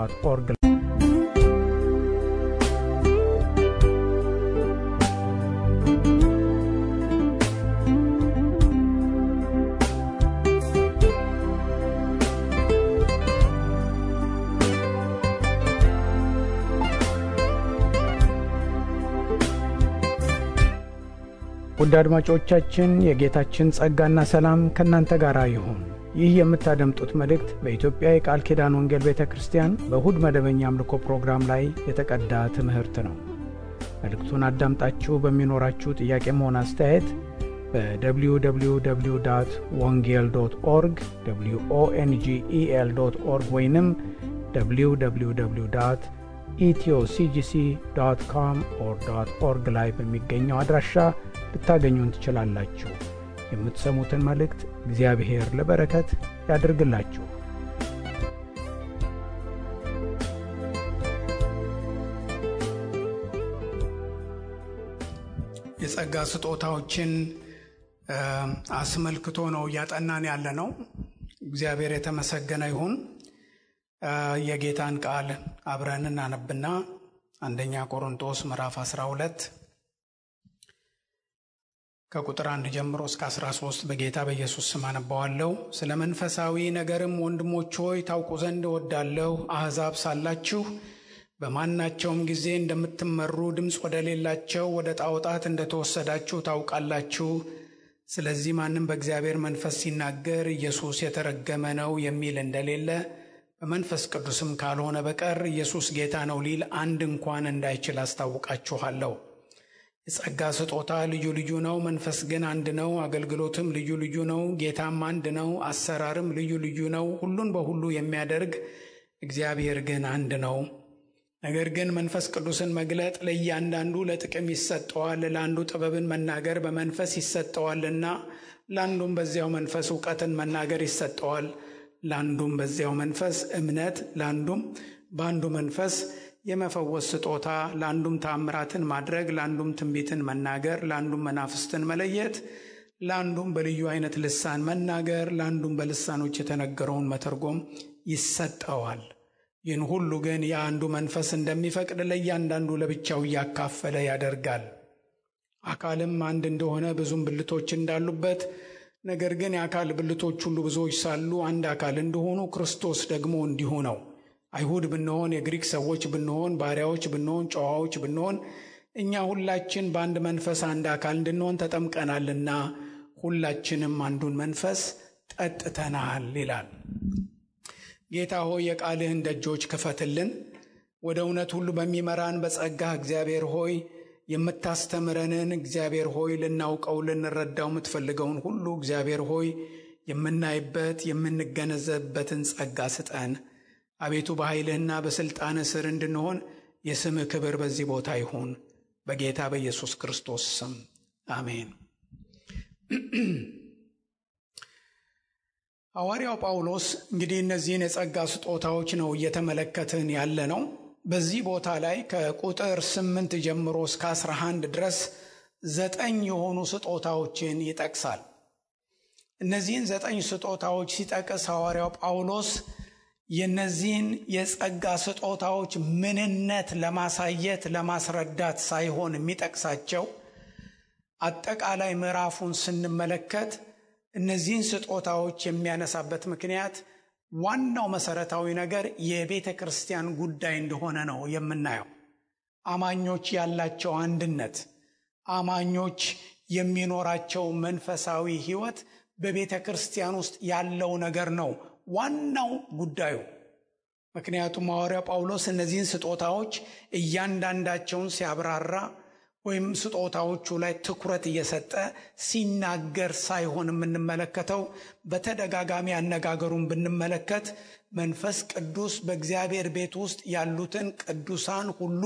www.wongel.org ውድ አድማጮቻችን የጌታችን ጸጋና ሰላም ከናንተ ጋር ይሁን። ይህ የምታደምጡት መልእክት በኢትዮጵያ የቃል ኪዳን ወንጌል ቤተክርስቲያን በእሁድ መደበኛ አምልኮ ፕሮግራም ላይ የተቀዳ ትምህርት ነው። መልእክቱን አዳምጣችሁ በሚኖራችሁ ጥያቄም ሆነ አስተያየት በwww.wongel.org wongel.org ወይንም www.ethioCGC.com/org ላይ በሚገኘው አድራሻ ልታገኙን ትችላላችሁ። የምትሰሙትን መልእክት እግዚአብሔር ለበረከት ያድርግላችሁ። የጸጋ ስጦታዎችን አስመልክቶ ነው ያጠናን ያለነው። እግዚአብሔር የተመሰገነ ይሁን። የጌታን ቃል አብረን እናነብና አንደኛ ቆሮንቶስ ምዕራፍ 12 ከቁጥር 1 ጀምሮ እስከ 13 በጌታ በኢየሱስ ስም አነባዋለሁ። ስለ መንፈሳዊ ነገርም ወንድሞች ሆይ ታውቁ ዘንድ እወዳለሁ። አሕዛብ ሳላችሁ በማናቸውም ጊዜ እንደምትመሩ ድምፅ ወደሌላቸው ወደ ጣዖታት እንደተወሰዳችሁ ታውቃላችሁ። ስለዚህ ማንም በእግዚአብሔር መንፈስ ሲናገር ኢየሱስ የተረገመ ነው የሚል እንደሌለ በመንፈስ ቅዱስም ካልሆነ በቀር ኢየሱስ ጌታ ነው ሊል አንድ እንኳን እንዳይችል አስታውቃችኋለሁ። የጸጋ ስጦታ ልዩ ልዩ ነው፣ መንፈስ ግን አንድ ነው። አገልግሎትም ልዩ ልዩ ነው፣ ጌታም አንድ ነው። አሰራርም ልዩ ልዩ ነው፣ ሁሉን በሁሉ የሚያደርግ እግዚአብሔር ግን አንድ ነው። ነገር ግን መንፈስ ቅዱስን መግለጥ ለእያንዳንዱ ለጥቅም ይሰጠዋል። ለአንዱ ጥበብን መናገር በመንፈስ ይሰጠዋልና፣ ለአንዱም በዚያው መንፈስ እውቀትን መናገር ይሰጠዋል። ለአንዱም በዚያው መንፈስ እምነት፣ ለአንዱም በአንዱ መንፈስ የመፈወስ ስጦታ፣ ለአንዱም ተአምራትን ማድረግ፣ ለአንዱም ትንቢትን መናገር፣ ለአንዱም መናፍስትን መለየት፣ ለአንዱም በልዩ አይነት ልሳን መናገር፣ ለአንዱም በልሳኖች የተነገረውን መተርጎም ይሰጠዋል። ይህን ሁሉ ግን የአንዱ መንፈስ እንደሚፈቅድ ለእያንዳንዱ ለብቻው እያካፈለ ያደርጋል። አካልም አንድ እንደሆነ ብዙም ብልቶች እንዳሉበት፣ ነገር ግን የአካል ብልቶች ሁሉ ብዙዎች ሳሉ አንድ አካል እንደሆኑ ክርስቶስ ደግሞ እንዲሁ ነው። አይሁድ ብንሆን፣ የግሪክ ሰዎች ብንሆን፣ ባሪያዎች ብንሆን፣ ጨዋዎች ብንሆን፣ እኛ ሁላችን በአንድ መንፈስ አንድ አካል እንድንሆን ተጠምቀናልና ሁላችንም አንዱን መንፈስ ጠጥተናል ይላል። ጌታ ሆይ የቃልህን ደጆች ክፈትልን። ወደ እውነት ሁሉ በሚመራን በጸጋህ እግዚአብሔር ሆይ የምታስተምረንን እግዚአብሔር ሆይ ልናውቀው ልንረዳው የምትፈልገውን ሁሉ እግዚአብሔር ሆይ የምናይበት የምንገነዘብበትን ጸጋ ስጠን። አቤቱ በኃይልህና በሥልጣንህ ስር እንድንሆን የስምህ ክብር በዚህ ቦታ ይሁን። በጌታ በኢየሱስ ክርስቶስ ስም አሜን። ሐዋርያው ጳውሎስ እንግዲህ እነዚህን የጸጋ ስጦታዎች ነው እየተመለከትን ያለ ነው። በዚህ ቦታ ላይ ከቁጥር 8 ጀምሮ እስከ 11 ድረስ 9 የሆኑ ስጦታዎችን ይጠቅሳል። እነዚህን 9 ስጦታዎች ሲጠቅስ ሐዋርያው ጳውሎስ የነዚህን የጸጋ ስጦታዎች ምንነት ለማሳየት ለማስረዳት ሳይሆን የሚጠቅሳቸው አጠቃላይ ምዕራፉን ስንመለከት እነዚህን ስጦታዎች የሚያነሳበት ምክንያት ዋናው መሰረታዊ ነገር የቤተ ክርስቲያን ጉዳይ እንደሆነ ነው የምናየው። አማኞች ያላቸው አንድነት፣ አማኞች የሚኖራቸው መንፈሳዊ ሕይወት በቤተ ክርስቲያን ውስጥ ያለው ነገር ነው ዋናው ጉዳዩ። ምክንያቱም ሐዋርያው ጳውሎስ እነዚህን ስጦታዎች እያንዳንዳቸውን ሲያብራራ ወይም ስጦታዎቹ ላይ ትኩረት እየሰጠ ሲናገር ሳይሆን የምንመለከተው፣ በተደጋጋሚ አነጋገሩን ብንመለከት መንፈስ ቅዱስ በእግዚአብሔር ቤት ውስጥ ያሉትን ቅዱሳን ሁሉ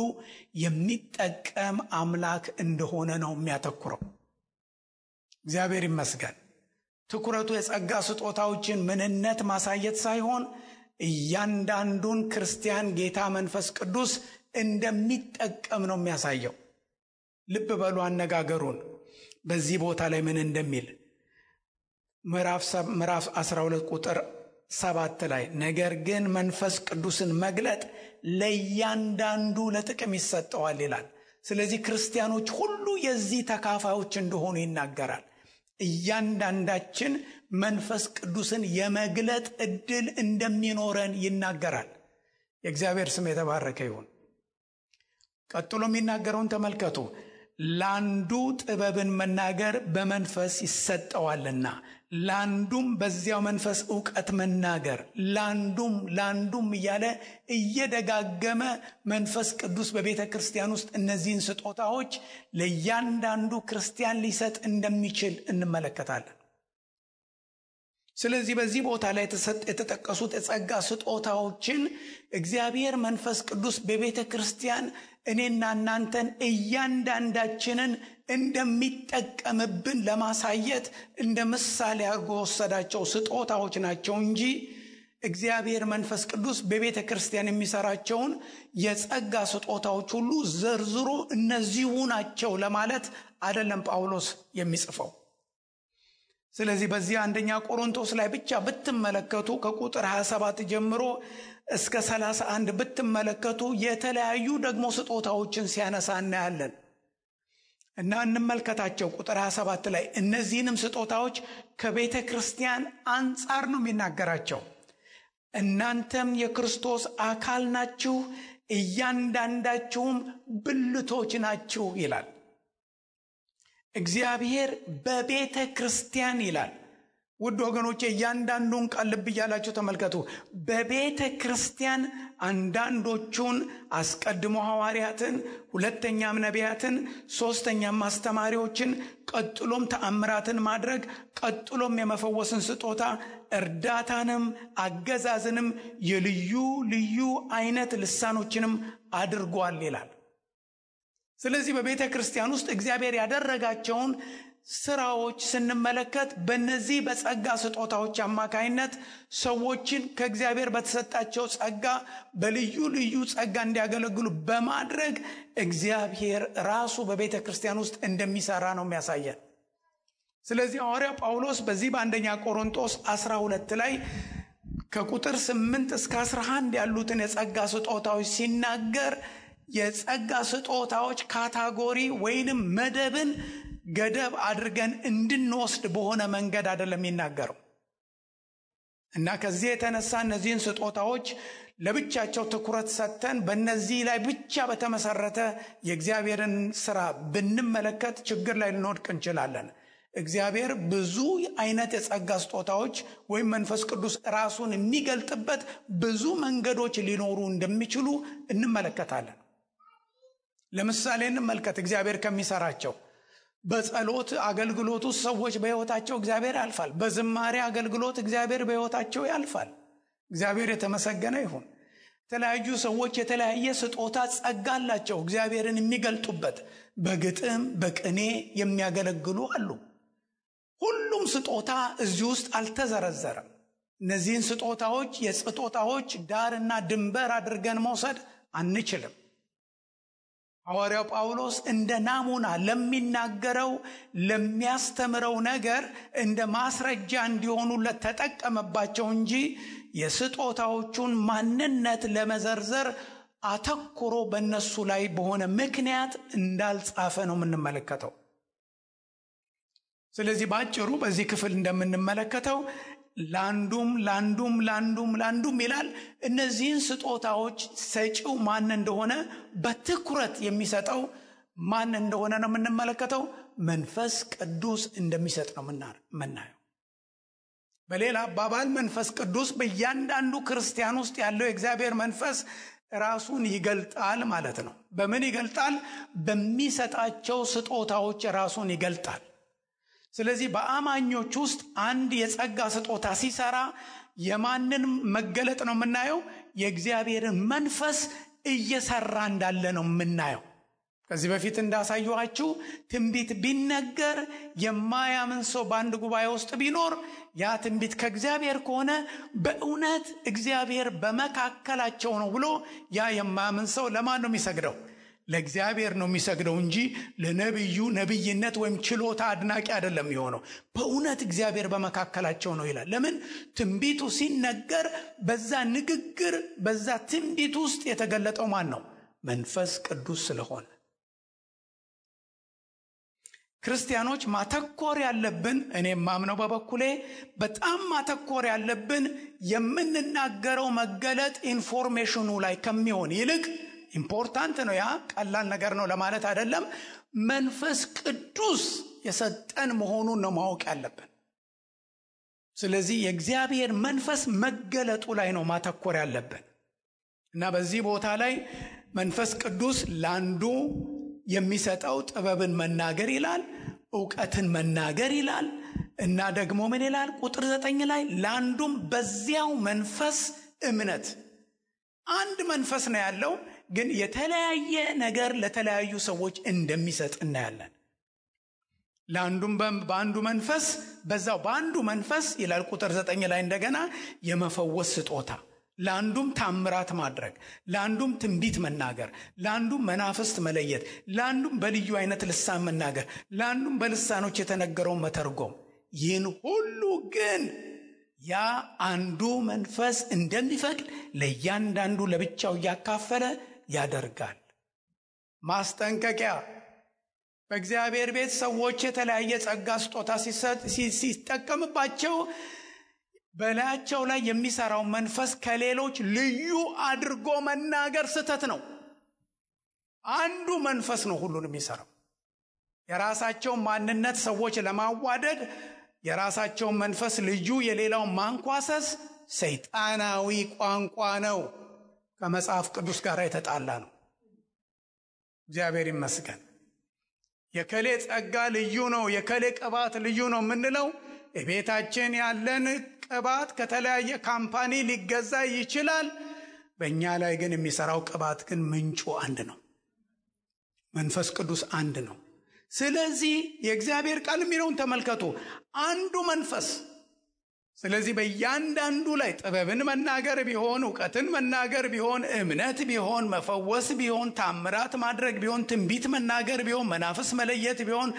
የሚጠቀም አምላክ እንደሆነ ነው የሚያተኩረው። እግዚአብሔር ይመስገን። ትኩረቱ የጸጋ ስጦታዎችን ምንነት ማሳየት ሳይሆን እያንዳንዱን ክርስቲያን ጌታ መንፈስ ቅዱስ እንደሚጠቀም ነው የሚያሳየው። ልብ በሉ አነጋገሩን በዚህ ቦታ ላይ ምን እንደሚል። ምዕራፍ 12 ቁጥር 7 ላይ ነገር ግን መንፈስ ቅዱስን መግለጥ ለእያንዳንዱ ለጥቅም ይሰጠዋል ይላል። ስለዚህ ክርስቲያኖች ሁሉ የዚህ ተካፋዮች እንደሆኑ ይናገራል። እያንዳንዳችን መንፈስ ቅዱስን የመግለጥ ዕድል እንደሚኖረን ይናገራል። የእግዚአብሔር ስም የተባረከ ይሁን። ቀጥሎ የሚናገረውን ተመልከቱ። ለአንዱ ጥበብን መናገር በመንፈስ ይሰጠዋልና፣ ለአንዱም በዚያው መንፈስ ዕውቀት መናገር፣ ለአንዱም እያለ እየደጋገመ መንፈስ ቅዱስ በቤተ ክርስቲያን ውስጥ እነዚህን ስጦታዎች ለእያንዳንዱ ክርስቲያን ሊሰጥ እንደሚችል እንመለከታለን። ስለዚህ በዚህ ቦታ ላይ የተጠቀሱት የጸጋ ስጦታዎችን እግዚአብሔር መንፈስ ቅዱስ በቤተ ክርስቲያን እኔና እናንተን እያንዳንዳችንን እንደሚጠቀምብን ለማሳየት እንደ ምሳሌ አድርጎ ወሰዳቸው ስጦታዎች ናቸው እንጂ እግዚአብሔር መንፈስ ቅዱስ በቤተ ክርስቲያን የሚሰራቸውን የጸጋ ስጦታዎች ሁሉ ዘርዝሮ እነዚሁ ናቸው ለማለት አይደለም ጳውሎስ የሚጽፈው። ስለዚህ በዚህ አንደኛ ቆሮንቶስ ላይ ብቻ ብትመለከቱ ከቁጥር 27 ጀምሮ እስከ 31 ብትመለከቱ የተለያዩ ደግሞ ስጦታዎችን ሲያነሳ እናያለን እና እንመልከታቸው። ቁጥር 27 ላይ እነዚህንም ስጦታዎች ከቤተ ክርስቲያን አንጻር ነው የሚናገራቸው። እናንተም የክርስቶስ አካል ናችሁ፣ እያንዳንዳችሁም ብልቶች ናችሁ ይላል። እግዚአብሔር በቤተ ክርስቲያን ይላል። ውድ ወገኖቼ እያንዳንዱን ቃል ልብ እያላችሁ ተመልከቱ። በቤተ ክርስቲያን አንዳንዶቹን አስቀድሞ ሐዋርያትን፣ ሁለተኛም ነቢያትን፣ ሶስተኛም አስተማሪዎችን፣ ቀጥሎም ተአምራትን ማድረግ፣ ቀጥሎም የመፈወስን ስጦታ፣ እርዳታንም፣ አገዛዝንም፣ የልዩ ልዩ አይነት ልሳኖችንም አድርጓል ይላል። ስለዚህ በቤተ ክርስቲያን ውስጥ እግዚአብሔር ያደረጋቸውን ስራዎች ስንመለከት በእነዚህ በጸጋ ስጦታዎች አማካይነት ሰዎችን ከእግዚአብሔር በተሰጣቸው ጸጋ በልዩ ልዩ ጸጋ እንዲያገለግሉ በማድረግ እግዚአብሔር ራሱ በቤተ ክርስቲያን ውስጥ እንደሚሰራ ነው የሚያሳየን። ስለዚህ ሐዋርያው ጳውሎስ በዚህ በአንደኛ ቆሮንቶስ 12 ላይ ከቁጥር 8 እስከ 11 ያሉትን የጸጋ ስጦታዎች ሲናገር የጸጋ ስጦታዎች ካታጎሪ ወይንም መደብን ገደብ አድርገን እንድንወስድ በሆነ መንገድ አይደለም የሚናገረው እና ከዚህ የተነሳ እነዚህን ስጦታዎች ለብቻቸው ትኩረት ሰጥተን በእነዚህ ላይ ብቻ በተመሰረተ የእግዚአብሔርን ስራ ብንመለከት ችግር ላይ ልንወድቅ እንችላለን። እግዚአብሔር ብዙ አይነት የጸጋ ስጦታዎች ወይም መንፈስ ቅዱስ ራሱን የሚገልጥበት ብዙ መንገዶች ሊኖሩ እንደሚችሉ እንመለከታለን። ለምሳሌ እንመልከት እግዚአብሔር ከሚሰራቸው። በጸሎት አገልግሎት ውስጥ ሰዎች በሕይወታቸው እግዚአብሔር ያልፋል። በዝማሬ አገልግሎት እግዚአብሔር በሕይወታቸው ያልፋል። እግዚአብሔር የተመሰገነ ይሁን። የተለያዩ ሰዎች የተለያየ ስጦታ ጸጋ አላቸው እግዚአብሔርን የሚገልጡበት። በግጥም በቅኔ የሚያገለግሉ አሉ። ሁሉም ስጦታ እዚህ ውስጥ አልተዘረዘረም። እነዚህን ስጦታዎች የስጦታዎች ዳርና ድንበር አድርገን መውሰድ አንችልም። ሐዋርያው ጳውሎስ እንደ ናሙና ለሚናገረው ለሚያስተምረው ነገር እንደ ማስረጃ እንዲሆኑለት ተጠቀመባቸው እንጂ የስጦታዎቹን ማንነት ለመዘርዘር አተኩሮ በእነሱ ላይ በሆነ ምክንያት እንዳልጻፈ ነው የምንመለከተው። ስለዚህ ባጭሩ በዚህ ክፍል እንደምንመለከተው ላንዱም ይላል። እነዚህን ስጦታዎች ሰጪው ማን እንደሆነ በትኩረት የሚሰጠው ማን እንደሆነ ነው የምንመለከተው። መንፈስ ቅዱስ እንደሚሰጥ ነው የምናየው። በሌላ አባባል መንፈስ ቅዱስ በእያንዳንዱ ክርስቲያን ውስጥ ያለው የእግዚአብሔር መንፈስ ራሱን ይገልጣል ማለት ነው። በምን ይገልጣል? በሚሰጣቸው ስጦታዎች ራሱን ይገልጣል። ስለዚህ በአማኞች ውስጥ አንድ የጸጋ ስጦታ ሲሰራ የማንን መገለጥ ነው የምናየው? የእግዚአብሔርን መንፈስ እየሰራ እንዳለ ነው የምናየው። ከዚህ በፊት እንዳሳየኋችሁ ትንቢት ቢነገር የማያምን ሰው በአንድ ጉባኤ ውስጥ ቢኖር ያ ትንቢት ከእግዚአብሔር ከሆነ በእውነት እግዚአብሔር በመካከላቸው ነው ብሎ ያ የማያምን ሰው ለማን ነው የሚሰግደው? ለእግዚአብሔር ነው የሚሰግደው እንጂ ለነብዩ ነብይነት ወይም ችሎታ አድናቂ አይደለም የሚሆነው። በእውነት እግዚአብሔር በመካከላቸው ነው ይላል። ለምን? ትንቢቱ ሲነገር በዛ ንግግር በዛ ትንቢት ውስጥ የተገለጠው ማን ነው? መንፈስ ቅዱስ ስለሆነ ክርስቲያኖች ማተኮር ያለብን፣ እኔም ማምነው በበኩሌ በጣም ማተኮር ያለብን የምንናገረው መገለጥ ኢንፎርሜሽኑ ላይ ከሚሆን ይልቅ ኢምፖርታንት ነው፣ ያ ቀላል ነገር ነው ለማለት አይደለም። መንፈስ ቅዱስ የሰጠን መሆኑን ነው ማወቅ ያለብን። ስለዚህ የእግዚአብሔር መንፈስ መገለጡ ላይ ነው ማተኮር ያለብን እና በዚህ ቦታ ላይ መንፈስ ቅዱስ ለአንዱ የሚሰጠው ጥበብን መናገር ይላል፣ ዕውቀትን መናገር ይላል እና ደግሞ ምን ይላል? ቁጥር 9 ላይ ለአንዱም በዚያው መንፈስ እምነት። አንድ መንፈስ ነው ያለው፣ ግን የተለያየ ነገር ለተለያዩ ሰዎች እንደሚሰጥ እናያለን። ለአንዱም በአንዱ መንፈስ በዛው በአንዱ መንፈስ ይላል ቁጥር 9 ላይ እንደገና የመፈወስ ስጦታ፣ ለአንዱም ታምራት ማድረግ፣ ለአንዱም ትንቢት መናገር፣ ለአንዱም መናፍስት መለየት፣ ለአንዱም በልዩ አይነት ልሳን መናገር፣ ለአንዱም በልሳኖች የተነገረውን መተርጎም። ይህን ሁሉ ግን ያ አንዱ መንፈስ እንደሚፈቅድ ለእያንዳንዱ ለብቻው እያካፈለ ያደርጋል። ማስጠንቀቂያ። በእግዚአብሔር ቤት ሰዎች የተለያየ ጸጋ ስጦታ ሲጠቀምባቸው በላያቸው ላይ የሚሰራው መንፈስ ከሌሎች ልዩ አድርጎ መናገር ስህተት ነው። አንዱ መንፈስ ነው ሁሉን የሚሰራው። የራሳቸውን ማንነት ሰዎች ለማዋደድ የራሳቸውን መንፈስ ልዩ የሌላውን ማንኳሰስ ሰይጣናዊ ቋንቋ ነው፣ ከመጽሐፍ ቅዱስ ጋር የተጣላ ነው። እግዚአብሔር ይመስገን። የከሌ ጸጋ ልዩ ነው፣ የከሌ ቅባት ልዩ ነው የምንለው ቤታችን ያለን ቅባት ከተለያየ ካምፓኒ ሊገዛ ይችላል። በእኛ ላይ ግን የሚሰራው ቅባት ግን ምንጩ አንድ ነው፣ መንፈስ ቅዱስ አንድ ነው። ስለዚህ የእግዚአብሔር ቃል የሚለውን ተመልከቱ፣ አንዱ መንፈስ። ስለዚህ በእያንዳንዱ ላይ ጥበብን መናገር ቢሆን፣ ዕውቀትን መናገር ቢሆን፣ እምነት ቢሆን፣ መፈወስ ቢሆን፣ ታምራት ማድረግ ቢሆን፣ ትንቢት መናገር ቢሆን፣ መናፍስ መለየት ቢሆን፣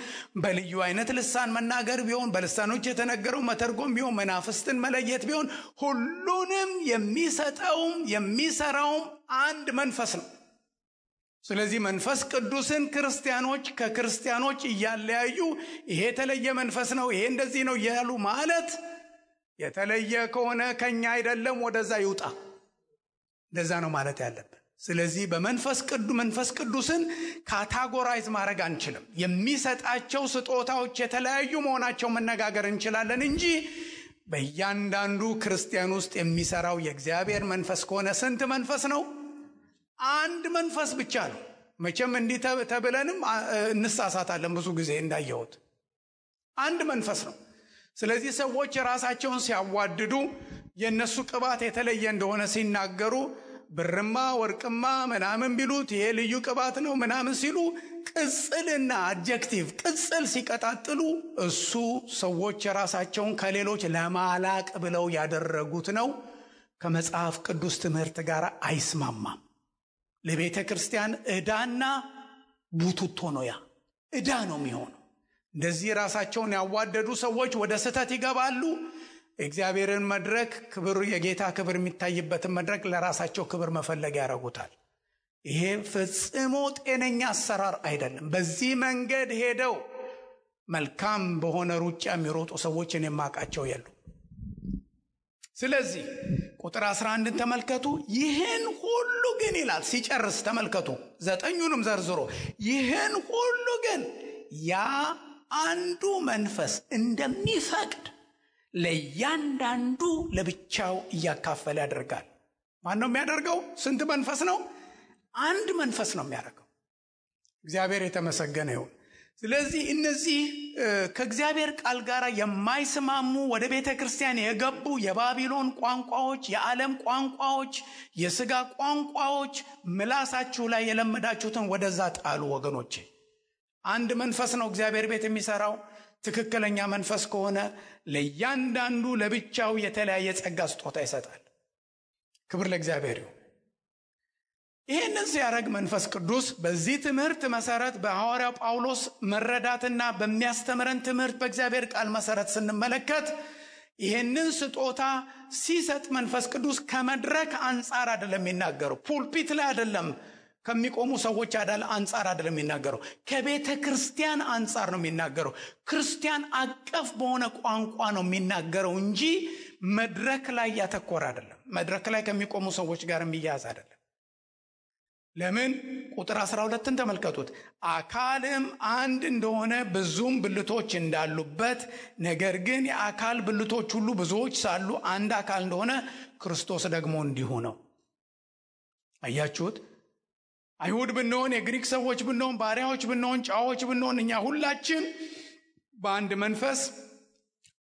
በልዩ አይነት ልሳን መናገር ቢሆን፣ በልሳኖች የተነገረው መተርጎም ቢሆን፣ መናፍስትን መለየት ቢሆን፣ ሁሉንም የሚሰጠውም የሚሰራውም አንድ መንፈስ ነው። ስለዚህ መንፈስ ቅዱስን ክርስቲያኖች ከክርስቲያኖች እያለያዩ ይሄ የተለየ መንፈስ ነው፣ ይሄ እንደዚህ ነው እያሉ ማለት የተለየ ከሆነ ከኛ አይደለም ወደዛ ይውጣ፣ እንደዛ ነው ማለት ያለብን። ስለዚህ መንፈስ ቅዱስን ካታጎራይዝ ማድረግ አንችልም። የሚሰጣቸው ስጦታዎች የተለያዩ መሆናቸው መነጋገር እንችላለን እንጂ በእያንዳንዱ ክርስቲያን ውስጥ የሚሰራው የእግዚአብሔር መንፈስ ከሆነ ስንት መንፈስ ነው? አንድ መንፈስ ብቻ ነው። መቼም እንዲህ ተብለንም እንሳሳታለን ብዙ ጊዜ እንዳየሁት። አንድ መንፈስ ነው። ስለዚህ ሰዎች ራሳቸውን ሲያዋድዱ የነሱ ቅባት የተለየ እንደሆነ ሲናገሩ ብርማ ወርቅማ ምናምን ቢሉት ይሄ ልዩ ቅባት ነው ምናምን ሲሉ ቅጽልና አድጀክቲቭ ቅጽል ሲቀጣጥሉ እሱ ሰዎች ራሳቸውን ከሌሎች ለማላቅ ብለው ያደረጉት ነው። ከመጽሐፍ ቅዱስ ትምህርት ጋር አይስማማም። ለቤተ ክርስቲያን ዕዳና ቡቱቶ ነው። ያ ዕዳ ነው የሚሆነው። እንደዚህ ራሳቸውን ያዋደዱ ሰዎች ወደ ስህተት ይገባሉ። እግዚአብሔርን መድረክ ክብር፣ የጌታ ክብር የሚታይበትን መድረክ ለራሳቸው ክብር መፈለግ ያደርጉታል። ይሄ ፈጽሞ ጤነኛ አሰራር አይደለም። በዚህ መንገድ ሄደው መልካም በሆነ ሩጫ የሚሮጡ ሰዎችን የማውቃቸው የሉ። ስለዚህ ቁጥር 11 ተመልከቱ። ይህን ሁሉ ግን ይላል ሲጨርስ ተመልከቱ፣ 9ኙንም ዘርዝሮ ይህን ሁሉ ግን ያ አንዱ መንፈስ እንደሚፈቅድ ለእያንዳንዱ ለብቻው እያካፈለ ያደርጋል። ማን ነው የሚያደርገው? ስንት መንፈስ ነው? አንድ መንፈስ ነው የሚያደርገው። እግዚአብሔር የተመሰገነ ይሁን። ስለዚህ እነዚህ ከእግዚአብሔር ቃል ጋር የማይስማሙ ወደ ቤተ ክርስቲያን የገቡ የባቢሎን ቋንቋዎች፣ የዓለም ቋንቋዎች፣ የሥጋ ቋንቋዎች ምላሳችሁ ላይ የለመዳችሁትን ወደዛ ጣሉ ወገኖቼ። አንድ መንፈስ ነው እግዚአብሔር ቤት የሚሰራው። ትክክለኛ መንፈስ ከሆነ ለእያንዳንዱ ለብቻው የተለያየ ጸጋ ስጦታ ይሰጣል። ክብር ለእግዚአብሔር ይሁን። ይሄንን ሲያደርግ መንፈስ ቅዱስ በዚህ ትምህርት መሰረት በሐዋርያው ጳውሎስ መረዳትና በሚያስተምረን ትምህርት በእግዚአብሔር ቃል መሰረት ስንመለከት ይሄንን ስጦታ ሲሰጥ መንፈስ ቅዱስ ከመድረክ አንጻር አይደለም የሚናገረው፣ ፑልፒት ላይ አይደለም፣ ከሚቆሙ ሰዎች አንጻር አይደለም የሚናገረው፣ ከቤተ ክርስቲያን አንጻር ነው የሚናገረው። ክርስቲያን አቀፍ በሆነ ቋንቋ ነው የሚናገረው እንጂ መድረክ ላይ ያተኮረ አይደለም። መድረክ ላይ ከሚቆሙ ሰዎች ጋር የሚያያዝ አይደለም። ለምን? ቁጥር 12ን ተመልከቱት። አካልም አንድ እንደሆነ ብዙም ብልቶች እንዳሉበት፣ ነገር ግን የአካል ብልቶች ሁሉ ብዙዎች ሳሉ አንድ አካል እንደሆነ ክርስቶስ ደግሞ እንዲሁ ነው። አያችሁት? አይሁድ ብንሆን፣ የግሪክ ሰዎች ብንሆን፣ ባሪያዎች ብንሆን፣ ጨዋዎች ብንሆን፣ እኛ ሁላችን በአንድ መንፈስ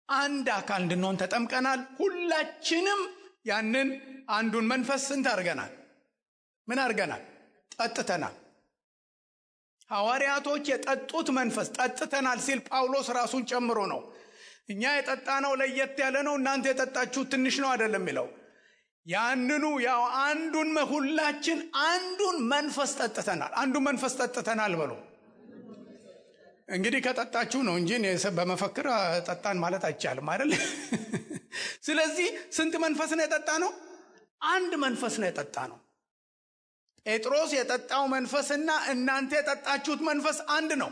አንድ አካል እንድንሆን ተጠምቀናል። ሁላችንም ያንን አንዱን መንፈስ ስንት አድርገናል? ምን አድርገናል? ጠጥተናል። ሐዋርያቶች የጠጡት መንፈስ ጠጥተናል ሲል ጳውሎስ ራሱን ጨምሮ ነው። እኛ የጠጣነው ለየት ያለ ነው፣ እናንተ የጠጣችሁት ትንሽ ነው አይደለም የሚለው። ያንኑ ያው አንዱን ሁላችን አንዱን መንፈስ ጠጥተናል። አንዱን መንፈስ ጠጥተናል በሉ። እንግዲህ ከጠጣችሁ ነው እንጂ በመፈክር ጠጣን ማለት አይቻልም አይደል? ስለዚህ ስንት መንፈስ ነው የጠጣነው? አንድ መንፈስ ነው የጠጣነው። ጴጥሮስ የጠጣው መንፈስና እናንተ የጠጣችሁት መንፈስ አንድ ነው።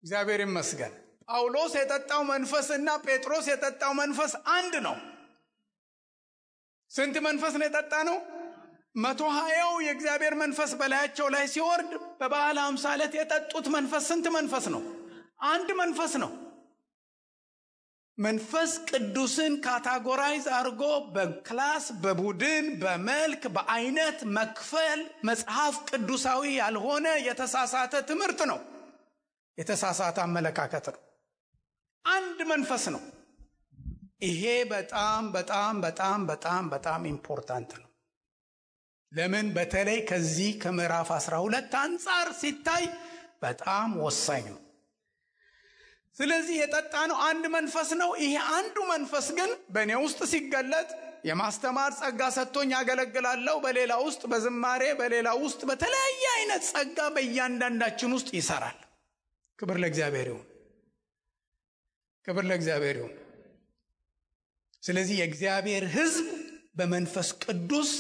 እግዚአብሔር ይመስገን። ጳውሎስ የጠጣው መንፈስና ጴጥሮስ የጠጣው መንፈስ አንድ ነው። ስንት መንፈስ ነው የጠጣነው? 120 የእግዚአብሔር መንፈስ በላያቸው ላይ ሲወርድ በበዓለ ሃምሳ ዕለት የጠጡት መንፈስ ስንት መንፈስ ነው? አንድ መንፈስ ነው። መንፈስ ቅዱስን ካታጎራይዝ አድርጎ በክላስ፣ በቡድን፣ በመልክ፣ በአይነት መክፈል መጽሐፍ ቅዱሳዊ ያልሆነ የተሳሳተ ትምህርት ነው። የተሳሳተ አመለካከት ነው። አንድ መንፈስ ነው። ይሄ በጣም በጣም በጣም በጣም በጣም ኢምፖርታንት ነው። ለምን? በተለይ ከዚህ ከምዕራፍ 12 አንጻር ሲታይ በጣም ወሳኝ ነው። ስለዚህ የጠጣነው አንድ መንፈስ ነው። ይሄ አንዱ መንፈስ ግን በእኔ ውስጥ ሲገለጥ የማስተማር ጸጋ ሰጥቶኝ ያገለግላለሁ። በሌላ ውስጥ በዝማሬ፣ በሌላ ውስጥ በተለያየ አይነት ጸጋ በእያንዳንዳችን ውስጥ ይሰራል። ክብር ለእግዚአብሔር ይሁን። ክብር ለእግዚአብሔር ይሁን። ስለዚህ የእግዚአብሔር ሕዝብ በመንፈስ ቅዱስ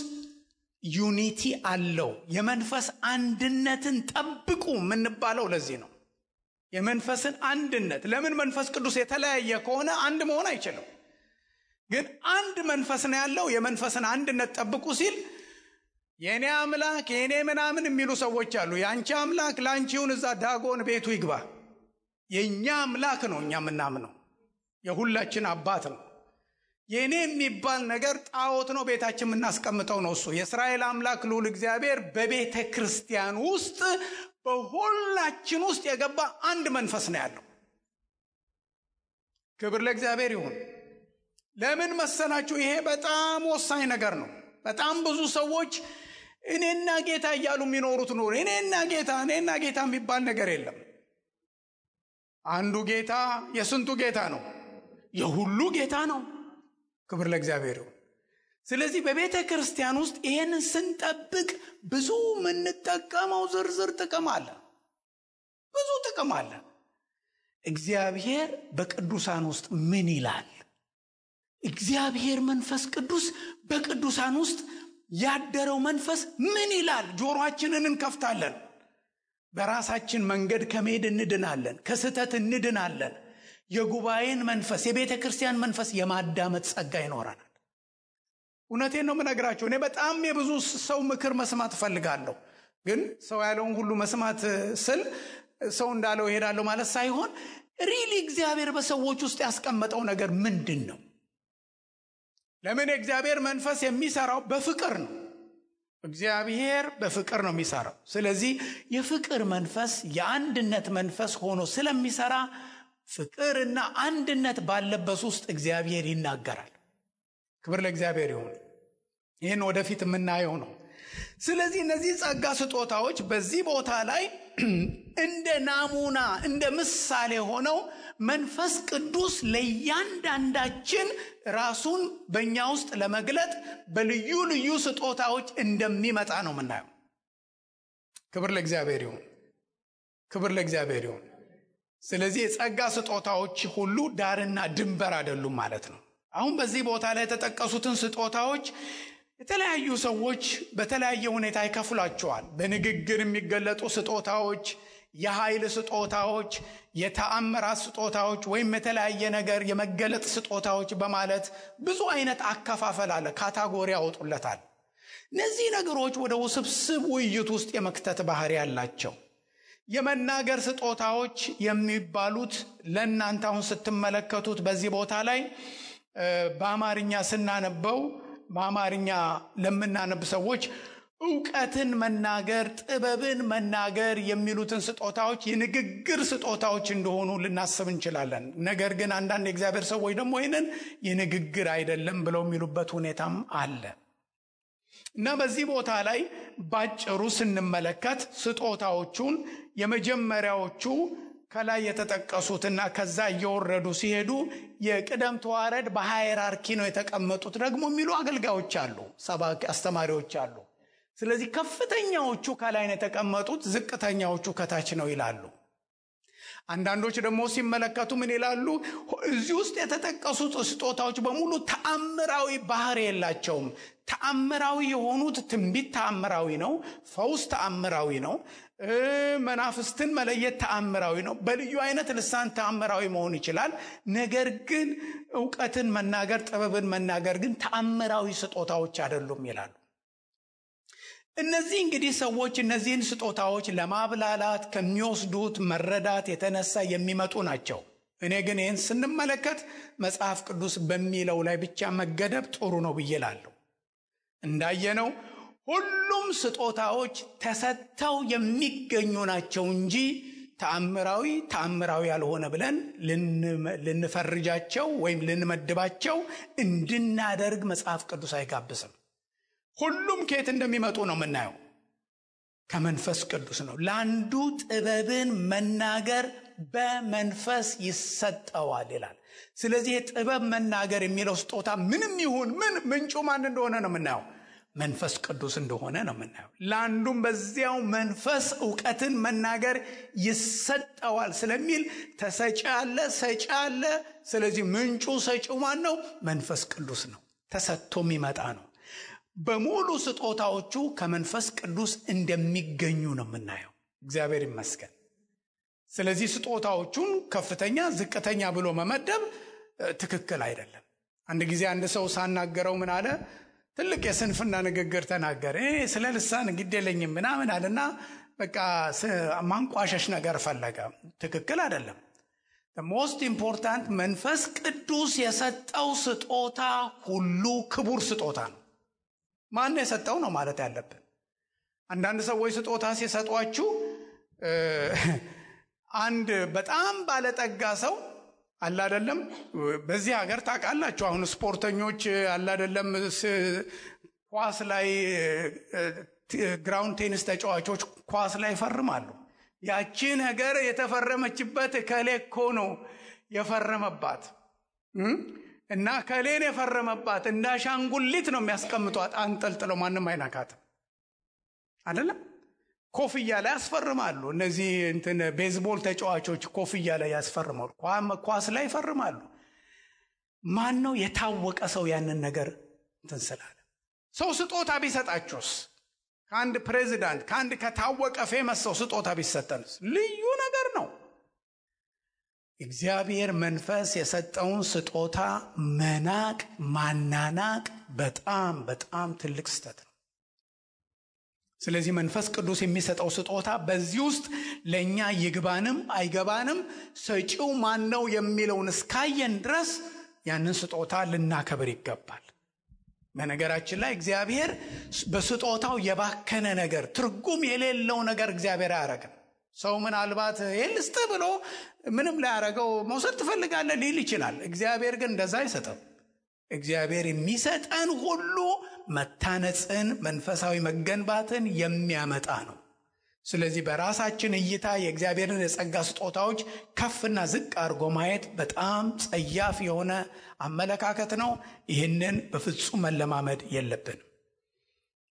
ዩኒቲ አለው። የመንፈስ አንድነትን ጠብቁ የምንባለው ለዚህ ነው። የመንፈስን አንድነት። ለምን? መንፈስ ቅዱስ የተለያየ ከሆነ አንድ መሆን አይችልም። ግን አንድ መንፈስ ነው ያለው። የመንፈስን አንድነት ጠብቁ ሲል የኔ አምላክ የኔ ምናምን የሚሉ ሰዎች አሉ። ያንቺ አምላክ ላንቺውን እዛ ዳጎን ቤቱ ይግባ። የኛ አምላክ ነው እኛ ምናምነው፣ የሁላችን አባት ነው። የኔ የሚባል ነገር ጣዖት ነው፣ ቤታችን የምናስቀምጠው ነው። እሱ የእስራኤል አምላክ ልዑል እግዚአብሔር በቤተ ክርስቲያን ውስጥ በሁላችን ውስጥ የገባ አንድ መንፈስ ነው ያለው። ክብር ለእግዚአብሔር ይሁን። ለምን መሰላችሁ? ይሄ በጣም ወሳኝ ነገር ነው። በጣም ብዙ ሰዎች እኔና ጌታ እያሉ የሚኖሩት ኑሮ እኔና ጌታ የሚባል ነገር የለም። አንዱ ጌታ የስንቱ ጌታ ነው? የሁሉ ጌታ ነው። ክብር ለእግዚአብሔር ይሁን። ስለዚህ በቤተ ክርስቲያን ውስጥ ይሄንን ስንጠብቅ ብዙ የምንጠቀመው ዝርዝር ጥቅም አለ። ብዙ ጥቅም አለ። እግዚአብሔር በቅዱሳን ውስጥ ምን ይላል? እግዚአብሔር መንፈስ ቅዱስ በቅዱሳን ውስጥ ያደረው መንፈስ ምን ይላል? ጆሮአችንን እንከፍታለን። በራሳችን መንገድ ከመሄድ እንድናለን፣ ከስህተት እንድናለን። የጉባኤን መንፈስ፣ የቤተ ክርስቲያን መንፈስ የማዳመጥ ጸጋ ይኖረናል። እውነቴን ነው የምነግራችሁ። እኔ በጣም የብዙ ሰው ምክር መስማት እፈልጋለሁ። ግን ሰው ያለውን ሁሉ መስማት ስል ሰው እንዳለው እሄዳለሁ ማለት ሳይሆን ሪሊ እግዚአብሔር በሰዎች ውስጥ ያስቀመጠው ነገር ምንድን ነው? ለምን? የእግዚአብሔር መንፈስ የሚሰራው በፍቅር ነው። እግዚአብሔር በፍቅር ነው የሚሰራው። ስለዚህ የፍቅር መንፈስ የአንድነት መንፈስ ሆኖ ስለሚሰራ ፍቅርና አንድነት ባለበት ውስጥ እግዚአብሔር ይናገራል። ክብር ለእግዚአብሔር ይሁን። ይህን ወደፊት የምናየው ነው። ስለዚህ እነዚህ ጸጋ ስጦታዎች በዚህ ቦታ ላይ እንደ ናሙና እንደ ምሳሌ ሆነው መንፈስ ቅዱስ ለእያንዳንዳችን ራሱን በእኛ ውስጥ ለመግለጥ በልዩ ልዩ ስጦታዎች እንደሚመጣ ነው የምናየው። ክብር ለእግዚአብሔር ይሁን፣ ክብር ለእግዚአብሔር ይሁን። ስለዚህ የጸጋ ስጦታዎች ሁሉ ዳርና ድንበር አይደሉም ማለት ነው። አሁን በዚህ ቦታ ላይ የተጠቀሱትን ስጦታዎች የተለያዩ ሰዎች በተለያየ ሁኔታ ይከፍሏቸዋል። በንግግር የሚገለጡ ስጦታዎች፣ የኃይል ስጦታዎች፣ የተአምራት ስጦታዎች ወይም የተለያየ ነገር የመገለጥ ስጦታዎች በማለት ብዙ አይነት አከፋፈል አለ፣ ካታጎሪ ያወጡለታል። እነዚህ ነገሮች ወደ ውስብስብ ውይይት ውስጥ የመክተት ባህሪ ያላቸው። የመናገር ስጦታዎች የሚባሉት ለእናንተ አሁን ስትመለከቱት በዚህ ቦታ ላይ በአማርኛ ስናነበው በአማርኛ ለምናነብ ሰዎች ዕውቀትን መናገር፣ ጥበብን መናገር የሚሉትን ስጦታዎች የንግግር ስጦታዎች እንደሆኑ ልናስብ እንችላለን። ነገር ግን አንዳንድ የእግዚአብሔር ሰዎች ደግሞ ይህንን የንግግር አይደለም ብለው የሚሉበት ሁኔታም አለ እና በዚህ ቦታ ላይ ባጭሩ ስንመለከት ስጦታዎቹን የመጀመሪያዎቹ ከላይ የተጠቀሱትና ከዛ እየወረዱ ሲሄዱ የቅደም ተዋረድ በሃይራርኪ ነው የተቀመጡት ደግሞ የሚሉ አገልጋዮች አሉ፣ ሰባኪ አስተማሪዎች አሉ። ስለዚህ ከፍተኛዎቹ ከላይ ነው የተቀመጡት፣ ዝቅተኛዎቹ ከታች ነው ይላሉ። አንዳንዶች ደግሞ ሲመለከቱ ምን ይላሉ? እዚህ ውስጥ የተጠቀሱት ስጦታዎች በሙሉ ተአምራዊ ባህሪ የላቸውም። ተአምራዊ የሆኑት ትንቢት ተአምራዊ ነው፣ ፈውስ ተአምራዊ ነው፣ መናፍስትን መለየት ተአምራዊ ነው፣ በልዩ አይነት ልሳን ተአምራዊ መሆን ይችላል። ነገር ግን ዕውቀትን መናገር፣ ጥበብን መናገር ግን ተአምራዊ ስጦታዎች አይደሉም ይላሉ። እነዚህ እንግዲህ ሰዎች እነዚህን ስጦታዎች ለማብላላት ከሚወስዱት መረዳት የተነሳ የሚመጡ ናቸው። እኔ ግን ይህን ስንመለከት መጽሐፍ ቅዱስ በሚለው ላይ ብቻ መገደብ ጥሩ ነው ብዬ እላለሁ። እንዳየነው ሁሉም ስጦታዎች ተሰጥተው የሚገኙ ናቸው እንጂ ተአምራዊ ያልሆነ ብለን ልንፈርጃቸው ወይም ልንመድባቸው እንድናደርግ መጽሐፍ ቅዱስ አይጋብስም። ሁሉም ከየት እንደሚመጡ ነው የምናየው፣ ከመንፈስ ቅዱስ ነው። ለአንዱ ጥበብን መናገር በመንፈስ ይሰጠዋል ይላል። ስለዚህ የጥበብ መናገር የሚለው ስጦታ ምንም ይሁን ምን ምንጩ ማን እንደሆነ ነው የምናየው፣ መንፈስ ቅዱስ እንደሆነ ነው የምናየው። ለአንዱም በዚያው መንፈስ ዕውቀትን መናገር ይሰጠዋል ስለሚል ተሰጪ አለ፣ ሰጪ አለ። ስለዚህ ምንጩ ሰጪው ማን ነው? መንፈስ ቅዱስ ነው። ተሰጥቶ የሚመጣ ነው። በሙሉ ስጦታዎቹ ከመንፈስ ቅዱስ እንደሚገኙ ነው የምናየው። እግዚአብሔር ይመስገን። ስለዚህ ስጦታዎቹን ከፍተኛ ዝቅተኛ ብሎ መመደብ ትክክል አይደለም። አንድ ጊዜ አንድ ሰው ሳናገረው ምን አለ? ትልቅ የስንፍና ንግግር ተናገረ። ስለ ልሳን ግዴለኝም ምናምን አለና በቃ ማንቋሸሽ ነገር ፈለገ። ትክክል አይደለም። ሞስት ኢምፖርታንት መንፈስ ቅዱስ የሰጠው ስጦታ ሁሉ ክቡር ስጦታ ነው። ማን የሰጠው ነው ማለት ያለብን። አንዳንድ ሰዎች ስጦታ ሲሰጧችሁ አንድ በጣም ባለጠጋ ሰው አለ አይደለም፣ በዚህ ሀገር ታውቃላችሁ፣ አሁን ስፖርተኞች አለ አይደለም፣ ኳስ ላይ ግራውንድ ቴኒስ ተጫዋቾች ኳስ ላይ ይፈርማሉ። ያቺ ነገር የተፈረመችበት ከሌ እኮ ነው የፈረመባት እና ከሌን የፈረመባት እንደ አሻንጉሊት ነው የሚያስቀምጧት አንጠልጥለው፣ ማንም አይናካትም አይደለም። ኮፍያ ላይ ያስፈርማሉ። እነዚህ ቤዝቦል ተጫዋቾች ኮፍያ ላይ ያስፈርማሉ፣ ኳስ ላይ ይፈርማሉ። ማን ነው የታወቀ ሰው ያንን ነገር ስላለ? ሰው ስጦታ ቢሰጣችሁስ? ከአንድ ፕሬዚዳንት ከአንድ ከታወቀ ፌመስ ሰው ስጦታ ቢሰጠንስ? ልዩ ነገር ነው። እግዚአብሔር መንፈስ የሰጠውን ስጦታ መናቅ ማናናቅ በጣም በጣም ትልቅ ስህተት ነው። ስለዚህ መንፈስ ቅዱስ የሚሰጠው ስጦታ በዚህ ውስጥ ለእኛ ይግባንም አይገባንም ሰጪው ማን ነው የሚለውን እስካየን ድረስ ያንን ስጦታ ልናከብር ይገባል። በነገራችን ላይ እግዚአብሔር በስጦታው የባከነ ነገር፣ ትርጉም የሌለው ነገር እግዚአብሔር አያረግም። ሰው ምናልባት የልስጥ ብሎ ምንም ላያረገው መውሰድ ትፈልጋለህ ሊል ይችላል። እግዚአብሔር ግን እንደዛ አይሰጥም። እግዚአብሔር የሚሰጠን ሁሉ መታነጽን፣ መንፈሳዊ መገንባትን የሚያመጣ ነው። ስለዚህ በራሳችን እይታ የእግዚአብሔርን የጸጋ ስጦታዎች ከፍና ዝቅ አድርጎ ማየት በጣም ጸያፍ የሆነ አመለካከት ነው። ይህንን በፍጹም መለማመድ የለብንም።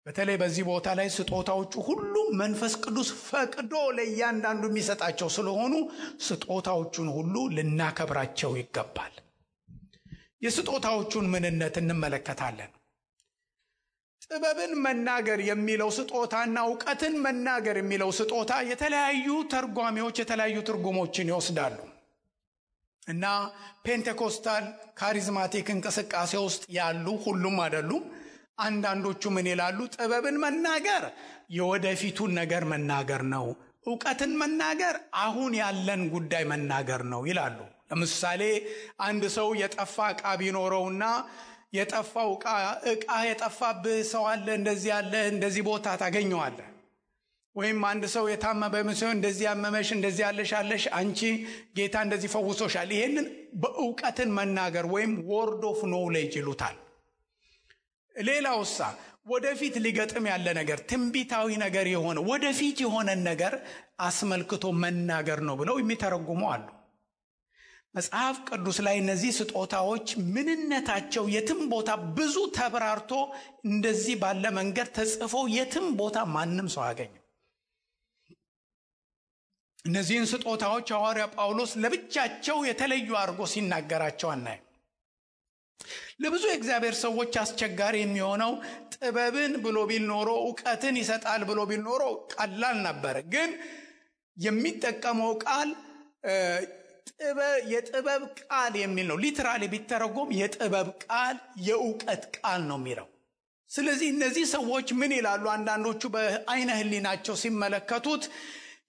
በተለይ በዚህ ቦታ ላይ ስጦታዎቹ ሁሉ መንፈስ ቅዱስ ፈቅዶ ለእያንዳንዱ የሚሰጣቸው ስለሆኑ ስጦታዎቹን ሁሉ ልናከብራቸው ይገባል። የስጦታዎቹን ምንነት እንመለከታለን። ጥበብን መናገር የሚለው ስጦታና እውቀትን መናገር የሚለው ስጦታ የተለያዩ ተርጓሚዎች የተለያዩ ትርጉሞችን ይወስዳሉ እና ፔንቴኮስታል ካሪዝማቲክ እንቅስቃሴ ውስጥ ያሉ ሁሉም አይደሉም። አንዳንዶቹ ምን ይላሉ? ጥበብን መናገር የወደፊቱን ነገር መናገር ነው፣ እውቀትን መናገር አሁን ያለን ጉዳይ መናገር ነው ይላሉ። ለምሳሌ አንድ ሰው የጠፋ ዕቃ ቢኖረውና የጠፋው ዕቃ የጠፋብህ ሰው አለ፣ እንደዚህ ያለ እንደዚህ ቦታ ታገኘዋለህ። ወይም አንድ ሰው የታመመ በመሰው እንደዚህ ያመመሽ እንደዚህ ያለሽ አንቺ ጌታ እንደዚህ ፈውሶሻል። ይሄንን በእውቀትን መናገር ወይም ወርድ ኦፍ ኖሌጅ ይሉታል። ሌላውሳ ወደፊት ሊገጥም ያለ ነገር ትንቢታዊ ነገር የሆነ ወደፊት የሆነን ነገር አስመልክቶ መናገር ነው ብለው የሚተረጉሙ አሉ። መጽሐፍ ቅዱስ ላይ እነዚህ ስጦታዎች ምንነታቸው የትም ቦታ ብዙ ተብራርቶ እንደዚህ ባለ መንገድ ተጽፎ የትም ቦታ ማንም ሰው አያገኝም። እነዚህን ስጦታዎች ሐዋርያ ጳውሎስ ለብቻቸው የተለዩ አድርጎ ሲናገራቸው አናይም። ለብዙ የእግዚአብሔር ሰዎች አስቸጋሪ የሚሆነው ጥበብን ብሎ ቢል ኖሮ እውቀትን ይሰጣል ብሎ ቢል ኖሮ ቀላል ነበር። ግን የሚጠቀመው ቃል የጥበብ ቃል የሚል ነው። ሊትራሊ ቢተረጎም የጥበብ ቃል የእውቀት ቃል ነው የሚለው። ስለዚህ እነዚህ ሰዎች ምን ይላሉ? አንዳንዶቹ በአይነ ህሊናቸው ሲመለከቱት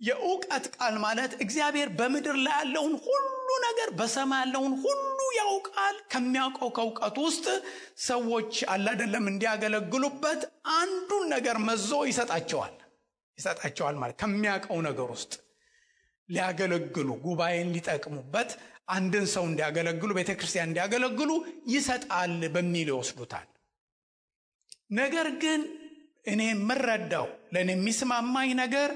የእውቀት ቃል ማለት እግዚአብሔር በምድር ላይ ያለውን ሁሉ ነገር በሰማይ ያለውን ሁሉ ያውቃል። ከሚያውቀው ከእውቀቱ ውስጥ ሰዎች አይደለም እንዲያገለግሉበት አንዱን ነገር መዞ ይሰጣቸዋል ማለት ከሚያውቀው ነገር ውስጥ ሊያገለግሉ ጉባኤን ሊጠቅሙበት አንድን ሰው እንዲያገለግሉ ቤተክርስቲያን እንዲያገለግሉ ይሰጣል በሚል ይወስዱታል። ነገር ግን እኔ የምረዳው ለእኔ የሚስማማኝ ነገር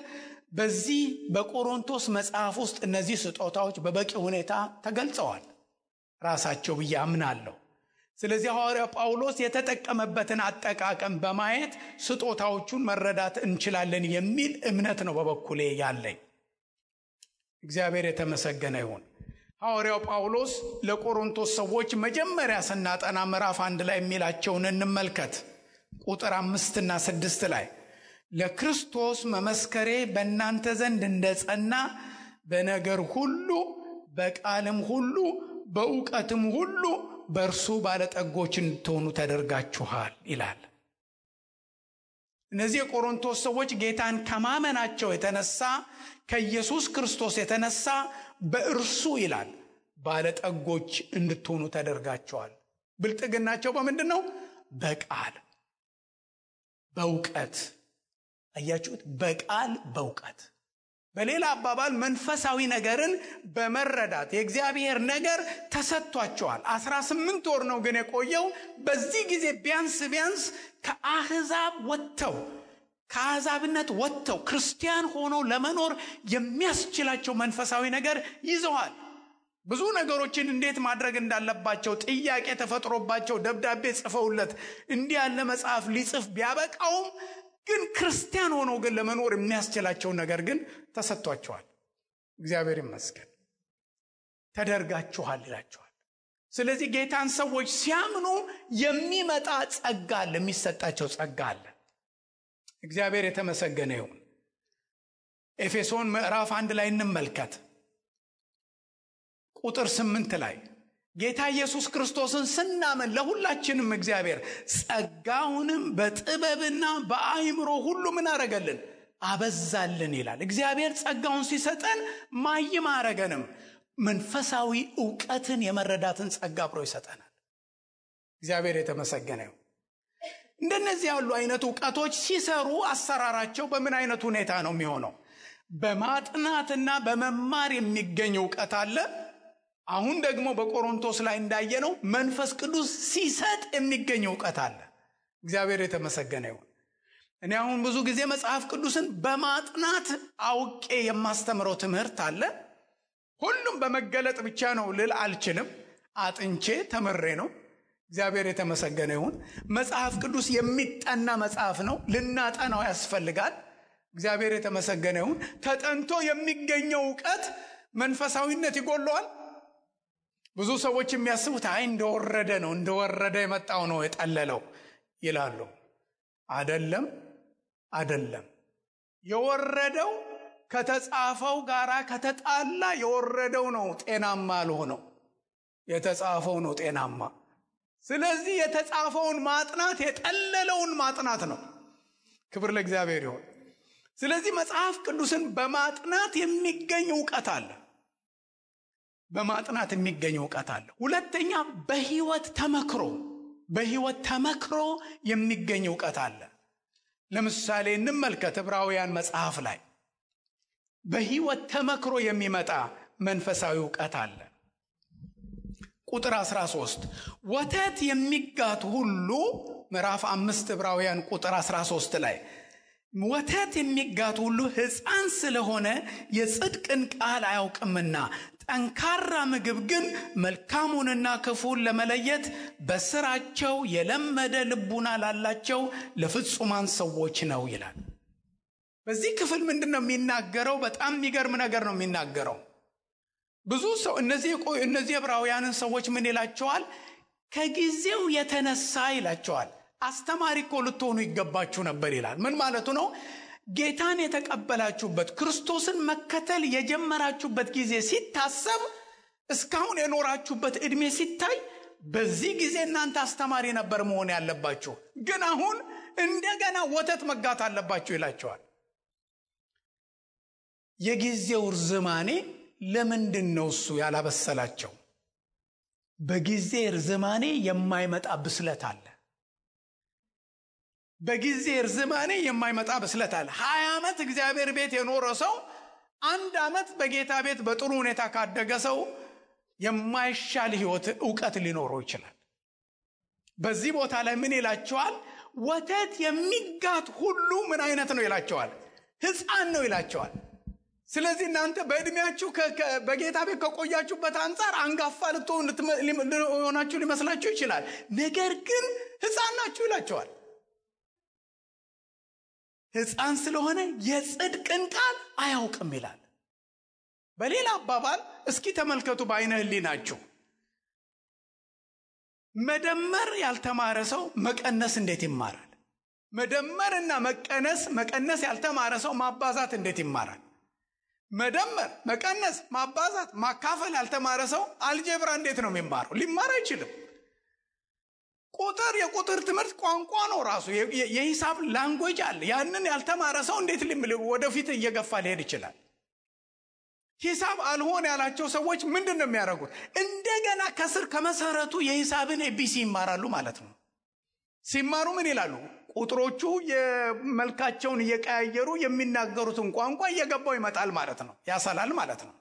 በዚህ በቆሮንቶስ መጽሐፍ ውስጥ እነዚህ ስጦታዎች በበቂ ሁኔታ ተገልጸዋል ራሳቸው ብዬ አምናለሁ። ስለዚህ ሐዋርያው ጳውሎስ የተጠቀመበትን አጠቃቀም በማየት ስጦታዎቹን መረዳት እንችላለን የሚል እምነት ነው በበኩሌ ያለኝ። እግዚአብሔር የተመሰገነ ይሁን። ሐዋርያው ጳውሎስ ለቆሮንቶስ ሰዎች መጀመሪያ ስናጠና ምዕራፍ 1 ላይ የሚላቸውን እንመልከት። ቁጥር 5 እና 6 ላይ ለክርስቶስ መመስከሬ በእናንተ ዘንድ እንደጸና በነገር ሁሉ በቃልም ሁሉ በእውቀትም ሁሉ በእርሱ ባለጠጎች እንድትሆኑ ተደርጋችኋል ይላል። እነዚህ የቆሮንቶስ ሰዎች ጌታን ከማመናቸው የተነሳ ከኢየሱስ ክርስቶስ የተነሳ በእርሱ ይላል ባለጠጎች እንድትሆኑ ተደርጋችኋል። ብልጥግናቸው በምንድን ነው? በቃል በእውቀት። አያችሁት? በቃል በእውቀት። በሌላ አባባል መንፈሳዊ ነገርን በመረዳት የእግዚአብሔር ነገር ተሰጥቷቸዋል። 18 ወር ነው ግን የቆየው። በዚህ ጊዜ ቢያንስ ከአሕዛብነት ወጥተው ክርስቲያን ሆነው ለመኖር የሚያስችላቸው መንፈሳዊ ነገር ይዘዋል። ብዙ ነገሮችን እንዴት ማድረግ እንዳለባቸው ጥያቄ ተፈጥሮባቸው ደብዳቤ ጽፈውለት እንዲህ ያለ መጽሐፍ ሊጽፍ ቢያበቃውም ግን ክርስቲያን ሆነው ግን ለመኖር የሚያስችላቸው ነገር ግን ተሰጥቷቸዋል። እግዚአብሔር ይመስገን። ተደርጋችኋል ይላቸዋል። ስለዚህ ጌታን ሰዎች ሲያምኑ የሚመጣ ጸጋ አለ፣ የሚሰጣቸው ጸጋ አለ። እግዚአብሔር የተመሰገነ ይሁን። ኤፌሶን ምዕራፍ 1 ላይ እንመልከት። ቁጥር 8 ላይ ጌታ ኢየሱስ ክርስቶስን ስናምን ለሁላችንም እግዚአብሔር ጸጋውንም በጥበብና በአእምሮ ሁሉ ምን አረገልን? አበዛልን ይላል። እግዚአብሔር ጸጋውን ሲሰጠን ማይም አረገንም፣ መንፈሳዊ ዕውቀትን የመረዳትን ጸጋ አብሮ ይሰጠናል። እግዚአብሔር የተመሰገነ ይሁን። እንደነዚህ ያሉ አይነት ዕውቀቶች ሲሰሩ አሰራራቸው በምን አይነት ሁኔታ ነው የሚሆነው? በማጥናትና በመማር የሚገኝ ዕውቀት አለ። አሁን ደግሞ በቆሮንቶስ ላይ እንዳየነው መንፈስ ቅዱስ ሲሰጥ የሚገኝ ዕውቀት አለ። እግዚአብሔር የተመሰገነ ይሁን። እኔ አሁን ብዙ ጊዜ መጽሐፍ ቅዱስን በማጥናት አውቄ የማስተምረው ትምህርት አለ። ሁሉም በመገለጥ ብቻ ነው ልል አልችልም። አጥንቼ ተምሬ ነው። እግዚአብሔር የተመሰገነ ይሁን። መጽሐፍ ቅዱስ የሚጠና መጽሐፍ ነው። ልናጠናው ያስፈልጋል። እግዚአብሔር የተመሰገነ ይሁን። ተጠንቶ የሚገኘው ዕውቀት መንፈሳዊነት ይጎለዋል። ብዙ ሰዎች የሚያስቡት አይ እንደወረደ የመጣው ነው የጠለለው ይላሉ። አይደለም። የወረደው ከተጻፈው ጋራ ከተጣላ የወረደው ነው ጤናማ አልሆነው፣ የተጻፈው ነው ጤናማ። ስለዚህ የተጻፈውን ማጥናት የጠለለውን ማጥናት ነው። ክብር ለእግዚአብሔር ይሁን። ስለዚህ መጽሐፍ ቅዱስን በማጥናት የሚገኝ ዕውቀት አለ። ሁለተኛ በህይወት ተመክሮ የሚገኝ ዕውቀት አለ። ለምሳሌ እንመልከት ዕብራውያን መጽሐፍ ላይ በህይወት ተመክሮ የሚመጣ መንፈሳዊ ዕውቀት አለ። ቁጥር 13 ወተት የሚጋት ሁሉ ምዕራፍ 5 ዕብራውያን ቁጥር 13 ላይ ወተት የሚጋት ሁሉ ሕፃን ስለሆነ የጽድቅን ቃል አያውቅምና ጠንካራ ምግብ ግን መልካሙንና ክፉን ለመለየት በስራቸው የለመደ ልቡና ላላቸው ለፍጹማን ሰዎች ነው ይላል። በዚህ ክፍል ምንድነው የሚናገረው? በጣም የሚገርም ነገር ነው የሚናገረው። ብዙ ሰው እነዚህ ዕብራውያንን ሰዎች ምን ይላቸዋል? ከጊዜው የተነሳ ይላቸዋል። አስተማሪ እኮ ልትሆኑ ይገባችሁ ነበር ይላል። ምን ማለቱ ነው? ጌታን የተቀበላችሁበት ክርስቶስን መከተል የጀመራችሁበት ጊዜ ሲታሰብ እስካሁን የኖራችሁበት ዕድሜ ሲታይ በዚህ ጊዜ እናንተ አስተማሪ ነበር መሆን ያለባችሁ፣ ግን አሁን እንደገና ወተት መጋት አለባችሁ ይላቸዋል። የጊዜው ርዝማኔ ለምንድን ነው እሱ ያላበሰላቸው? በጊዜ ርዝማኔ የማይመጣ ብስለት አለ። በጊዜ ርዝማኔ የማይመጣ ብስለት አለ። 20 ዓመት እግዚአብሔር ቤት የኖረ ሰው 1 ዓመት በጌታ ቤት በጥሩ ሁኔታ ካደገ ሰው የማይሻል ሕይወት ዕውቀት ሊኖረው ይችላል። በዚህ ቦታ ላይ ምን ይላቸዋል? ወተት የሚጋት ሁሉ ምን አይነት ነው ይላቸዋል? ሕፃን ነው ይላቸዋል። ስለዚህ እናንተ በእድሜያችሁ በጌታ ቤት ከቆያችሁበት አንፃር አንጋፋ ልትሆናችሁ ሊመስላችሁ ይችላል። ነገር ግን ሕፃን ናችሁ ይላቸዋል። ሕፃን ስለሆነ የጽድቅን ቃል አያውቅም ይላል። በሌላ አባባል እስኪ ተመልከቱ በአይነ ህሊናችሁ። መደመር ያልተማረ ሰው መቀነስ እንዴት ይማራል? መደመርና መቀነስ ያልተማረ ሰው ማባዛት እንዴት ይማራል? መደመር፣ መቀነስ፣ ማባዛት፣ ማካፈል ያልተማረ ሰው አልጀብራ እንዴት ነው የሚማረው? ሊማር አይችልም። የቁጥር ትምህርት ቋንቋ ነው ራሱ። የሂሳብ ላንጉዌጅ አለ። ያንን ያልተማረ ሰው እንዴት ወደፊት እየገፋ ሊሄድ ይችላል? ሂሳብ አልሆን ያላቸው ሰዎች ምንድን ነው የሚያደርጉት? እንደገና ከስር ከመሰረቱ የሂሳብን ኤቢሲ ይማራሉ ማለት ነው። ሲማሩ ምን ይላሉ? ቁጥሮቹ የመልካቸውን እየቀያየሩ የሚናገሩትን ቋንቋ እየገባው ይመጣል ማለት ነው። ያሰላል ማለት ነው።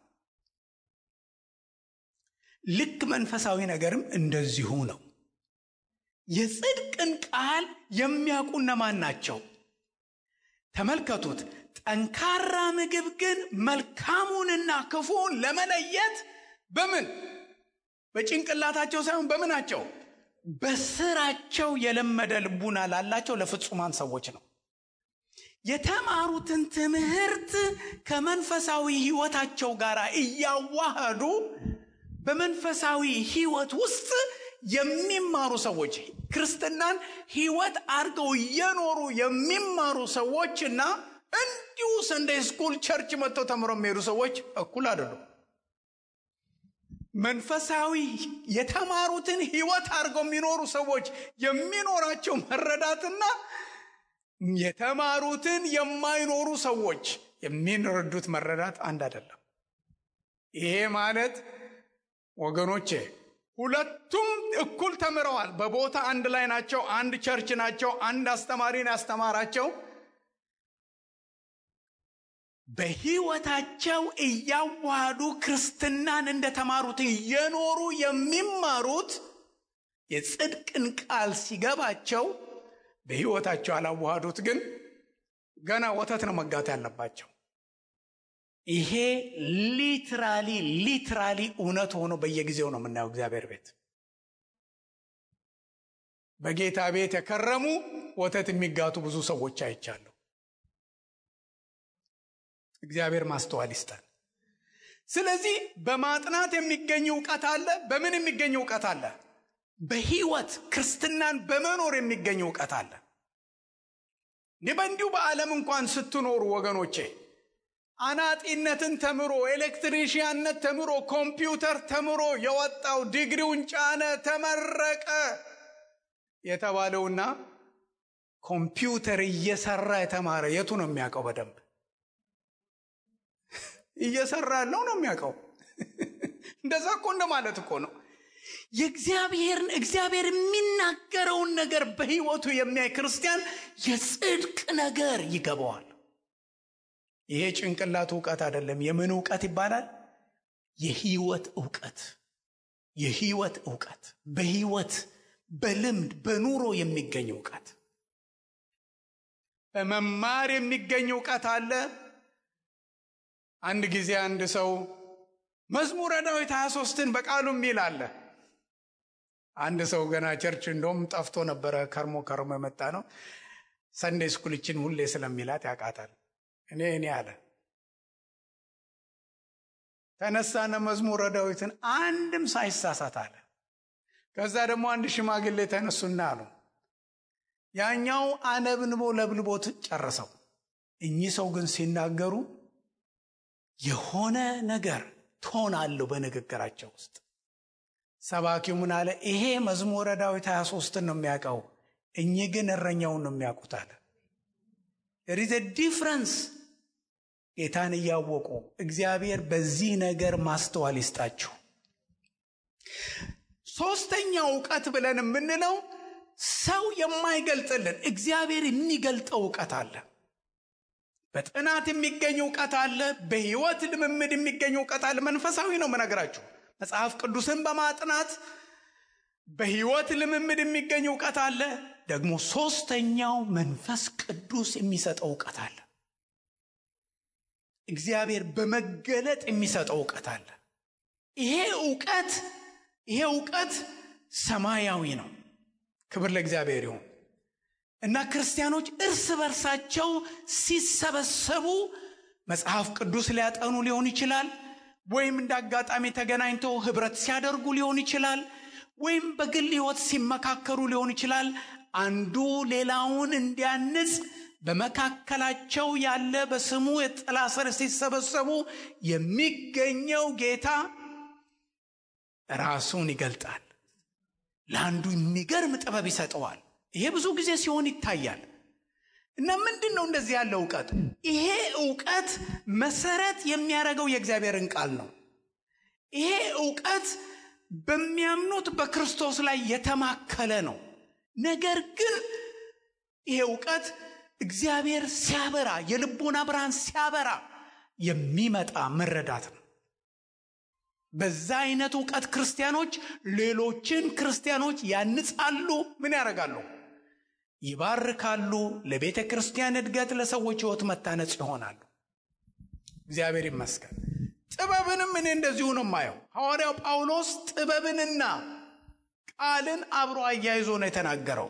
ልክ መንፈሳዊ ነገርም እንደዚሁ ነው። የጽድቅን ቃል የሚያውቁ እነማን ናቸው? ተመልከቱት። ጠንካራ ምግብ ግን መልካሙንና ክፉን ለመለየት በጭንቅላታቸው ሳይሆን በምናቸው? በስራቸው የለመደ ልቡና ላላቸው ለፍጹማን ሰዎች ነው። የተማሩትን ትምህርት ከመንፈሳዊ ሕይወታቸው ጋር እያዋሃዱ በመንፈሳዊ ሕይወት ውስጥ የሚማሩ ሰዎች፣ ክርስትናን ሕይወት አድርገው እየኖሩ የሚማሩ ሰዎችና እንዲሁ ሰንደይ ስኩል ቸርች መጥተው ተምረው የሚሄዱ ሰዎች እኩል አይደሉም። መንፈሳዊ የተማሩትን ሕይወት አድርገው የሚኖሩ ሰዎች የሚኖራቸው መረዳትና የተማሩትን የማይኖሩ ሰዎች የሚረዱት መረዳት አንድ አይደለም። ይሄ ማለት ወገኖቼ ሁለቱም እኩል ተምረዋል። በቦታ አንድ ላይ ናቸው። አንድ ቸርች ናቸው። አንድ አስተማሪን ያስተማራቸው። በሕይወታቸው እያዋሃዱ ክርስትናን እንደተማሩት እየኖሩ የሚማሩት የጽድቅን ቃል ሲገባቸው በሕይወታቸው አላዋሃዱት ግን ገና ወተት ነው መጋት ያለባቸው። ይሄ ሊትራሊ እውነት ሆኖ በየጊዜው ነው የምናየው። እግዚአብሔር ቤት በጌታ ቤት የከረሙ ወተት የሚጋቱ ብዙ ሰዎች አይቻለሁ። እግዚአብሔር ማስተዋል ይስጠን። ስለዚህ በማጥናት የሚገኝ ዕውቀት አለ። በምን የሚገኝ ዕውቀት አለ? በሕይወት ክርስትናን በመኖር የሚገኝ ዕውቀት አለ። እንዲሁ በዓለም እንኳን ስትኖሩ ወገኖቼ አናጢነትን ተምሮ ኤሌክትሪሽያንነት ተምሮ ኮምፒውተር ተምሮ የወጣው ዲግሪውን ጫነ ተመረቀ የተባለውና ኮምፒውተር እየሰራ የተማረ የቱ ነው የሚያውቀው? በደንብ እየሰራ ያለው ነው የሚያውቀው። እንደዛ እኮ እንደማለት እኮ ነው። እግዚአብሔር የሚናገረውን ነገር በሕይወቱ የሚያይ ክርስቲያን የጽድቅ ነገር ይገባዋል። ይሄ ጭንቅላት ዕውቀት አይደለም። የምን ዕውቀት ይባላል? የሕይወት ዕውቀት። የሕይወት ዕውቀት በሕይወት በልምድ በኑሮ የሚገኝ ዕውቀት። በመማር የሚገኝ ዕውቀት አለ። አንድ ጊዜ አንድ ሰው መዝሙረ ዳዊት 23ን በቃሉ የሚል አለ። አንድ ሰው ገና ቸርች እንደውም ጠፍቶ ነበረ፣ ከርሞ የመጣ ነው። ሰንዴይ ስኩልችን ሁሌ ስለሚላት ያቃታል። እኔ አለ ተነሳነ መዝሙረ ዳዊትን አንድም ሳይሳሳት አለ። ከዛ ደግሞ አንድ ሽማግሌ ተነሱና አሉ። ያኛው አነብንቦ ለብልቦት ጨረሰው። እኚህ ሰው ግን ሲናገሩ የሆነ ነገር ቶን አለው በንግግራቸው ውስጥ። ሰባኪው ምን አለ? ይሄ መዝሙረ ዳዊት 23ን ነው የሚያውቀው፣ እኚህ ግን እረኛውን ነው የሚያውቁት አለ። there is a difference። ጌታን እያወቁ እግዚአብሔር በዚህ ነገር ማስተዋል ይስጣችሁ። ሶስተኛው ዕውቀት ብለን የምንለው ሰው የማይገልጥልን እግዚአብሔር የሚገልጠው ዕውቀት አለ። በጥናት የሚገኝ ዕውቀት አለ። በሕይወት ልምምድ የሚገኝ ዕውቀት አለ። መንፈሳዊ ነው የምነግራችሁ። መጽሐፍ ቅዱስን በማጥናት በሕይወት ልምምድ የሚገኝ ዕውቀት አለ። ደግሞ ሶስተኛው መንፈስ ቅዱስ የሚሰጠው ዕውቀት አለ። እግዚአብሔር በመገለጥ የሚሰጠው ዕውቀት አለ። ይሄ ዕውቀት ሰማያዊ ነው። ክብር ለእግዚአብሔር ይሁን። እና ክርስቲያኖች እርስ በርሳቸው ሲሰበሰቡ መጽሐፍ ቅዱስ ሊያጠኑ ሊሆን ይችላል፣ ወይም እንዳጋጣሚ ተገናኝተው ህብረት ሲያደርጉ ሊሆን ይችላል፣ ወይም በግል ሕይወት ሲመካከሩ ሊሆን ይችላል። አንዱ ሌላውን እንዲያንጽ በመካከላቸው ያለ በስሙ የጥላ ስር ሲሰበሰቡ የሚገኘው ጌታ ራሱን ይገልጣል። ለአንዱ የሚገርም ጥበብ ይሰጠዋል። ይሄ ብዙ ጊዜ ሲሆን ይታያል። እና ምንድነው እንደዚህ ያለው ዕውቀት? ይሄ ዕውቀት መሰረት የሚያደርገው የእግዚአብሔርን ቃል ነው። ይሄ ዕውቀት በሚያምኑት በክርስቶስ ላይ የተማከለ ነው። ነገር ግን ይሄ ዕውቀት እግዚአብሔር ሲያበራ፣ የልቦና ብርሃን ሲያበራ የሚመጣ መረዳት ነው። በዛ አይነት ዕውቀት ክርስቲያኖች ሌሎችን ክርስቲያኖች ያንጻሉ። ምን ያደርጋሉ? ይባርካሉ። ለቤተ ክርስቲያን እድገት፣ ለሰዎች ሕይወት መታነጽ ይሆናሉ። እግዚአብሔር ይመስገን። ጥበብንም እኔ እንደዚሁ ነው የማየው። ሐዋርያው ጳውሎስ ጥበብንና ቃልን አብሮ አያይዞ ነው የተናገረው።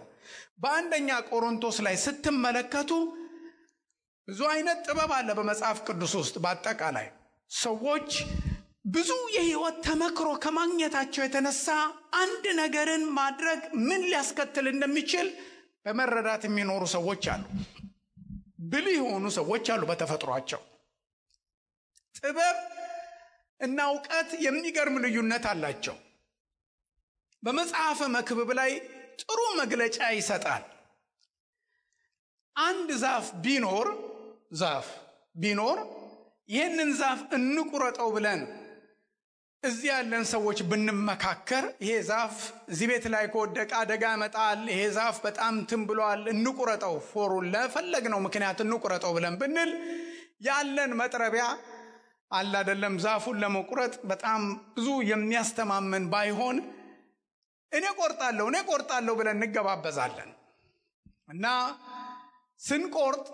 በአንደኛ ቆሮንቶስ ላይ ስትመለከቱ ብዙ አይነት ጥበብ አለ በመጽሐፍ ቅዱስ ውስጥ። በአጠቃላይ ሰዎች ብዙ የሕይወት ተመክሮ ከማግኘታቸው የተነሳ አንድ ነገርን ማድረግ ምን ሊያስከትል እንደሚችል በመረዳት የሚኖሩ ሰዎች አሉ። ብልህ የሆኑ ሰዎች አሉ በተፈጥሯቸው። ጥበብ እና ዕውቀት የሚገርም ልዩነት አላቸው። በመጽሐፈ መክብብ ላይ ጥሩ መግለጫ ይሰጣል። አንድ ዛፍ ቢኖር ይህንን ዛፍ እንቁረጠው ብለን እዚህ ያለን ሰዎች ብንመካከር፣ ይሄ ዛፍ እዚህ ቤት ላይ ከወደቀ አደጋ ያመጣል፣ ይሄ ዛፍ በጣም ብሏል፣ እንቁረጠው፣ ፎሩን ለፈለግነው ምክንያት እንቁረጠው ብለን ብንል ያለን መጥረቢያ አለ አይደለም፣ ዛፉን ለመቁረጥ በጣም ብዙ የሚያስተማመን ባይሆን እኔ ቆርጣለሁ ብለን እንገባበዛለን እና ስንቆርጥ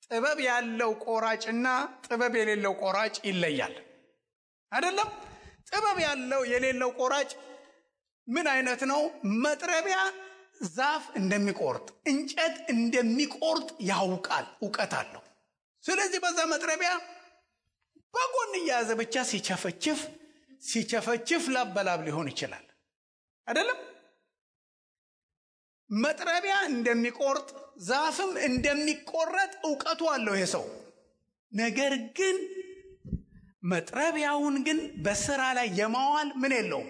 ጥበብ ያለው ቆራጭና ጥበብ የሌለው ቆራጭ ይለያል አይደለም? ጥበብ ያለው የሌለው ቆራጭ ምን አይነት ነው? መጥረቢያ ዛፍ እንደሚቆርጥ እንጨት እንደሚቆርጥ ያውቃል፣ ዕውቀት አለው። ስለዚህ በዛ መጥረቢያ በጎን እያያዘ ብቻ ሲቸፈችፍ ላበላብ ሊሆን ይችላል አይደለም? መጥረቢያ እንደሚቆርጥ ዛፍም እንደሚቆረጥ ዕውቀቱ አለው ይሄ ሰው። ነገር ግን መጥረቢያውን ግን በስራ ላይ የማዋል ምን የለውም?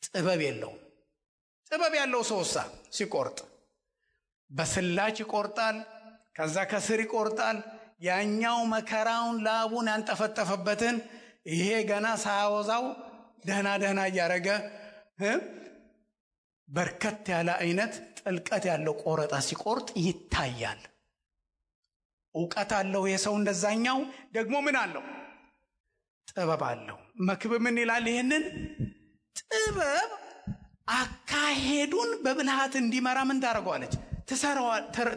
ጥበብ የለውም። ጥበብ ያለው ሰውሳ ሲቆርጥ በስላች ይቆርጣል፣ ከዛ ከስር ይቆርጣል። ያኛው መከራውን ላቡን ያንጠፈጠፈበትን ይሄ ገና ሳያወዛው ደህና እያረገ በርከት ያለ አይነት ጥልቀት ያለው ቆረጣ ሲቆርጥ ይታያል። ዕውቀት አለው የሰው። እንደዛኛው ደግሞ ምን አለው? ጥበብ አለው። መክብብ ምን ይላል? ይሄንን ጥበብ አካሄዱን በብልሃት እንዲመራ ምን ታደርገዋለች?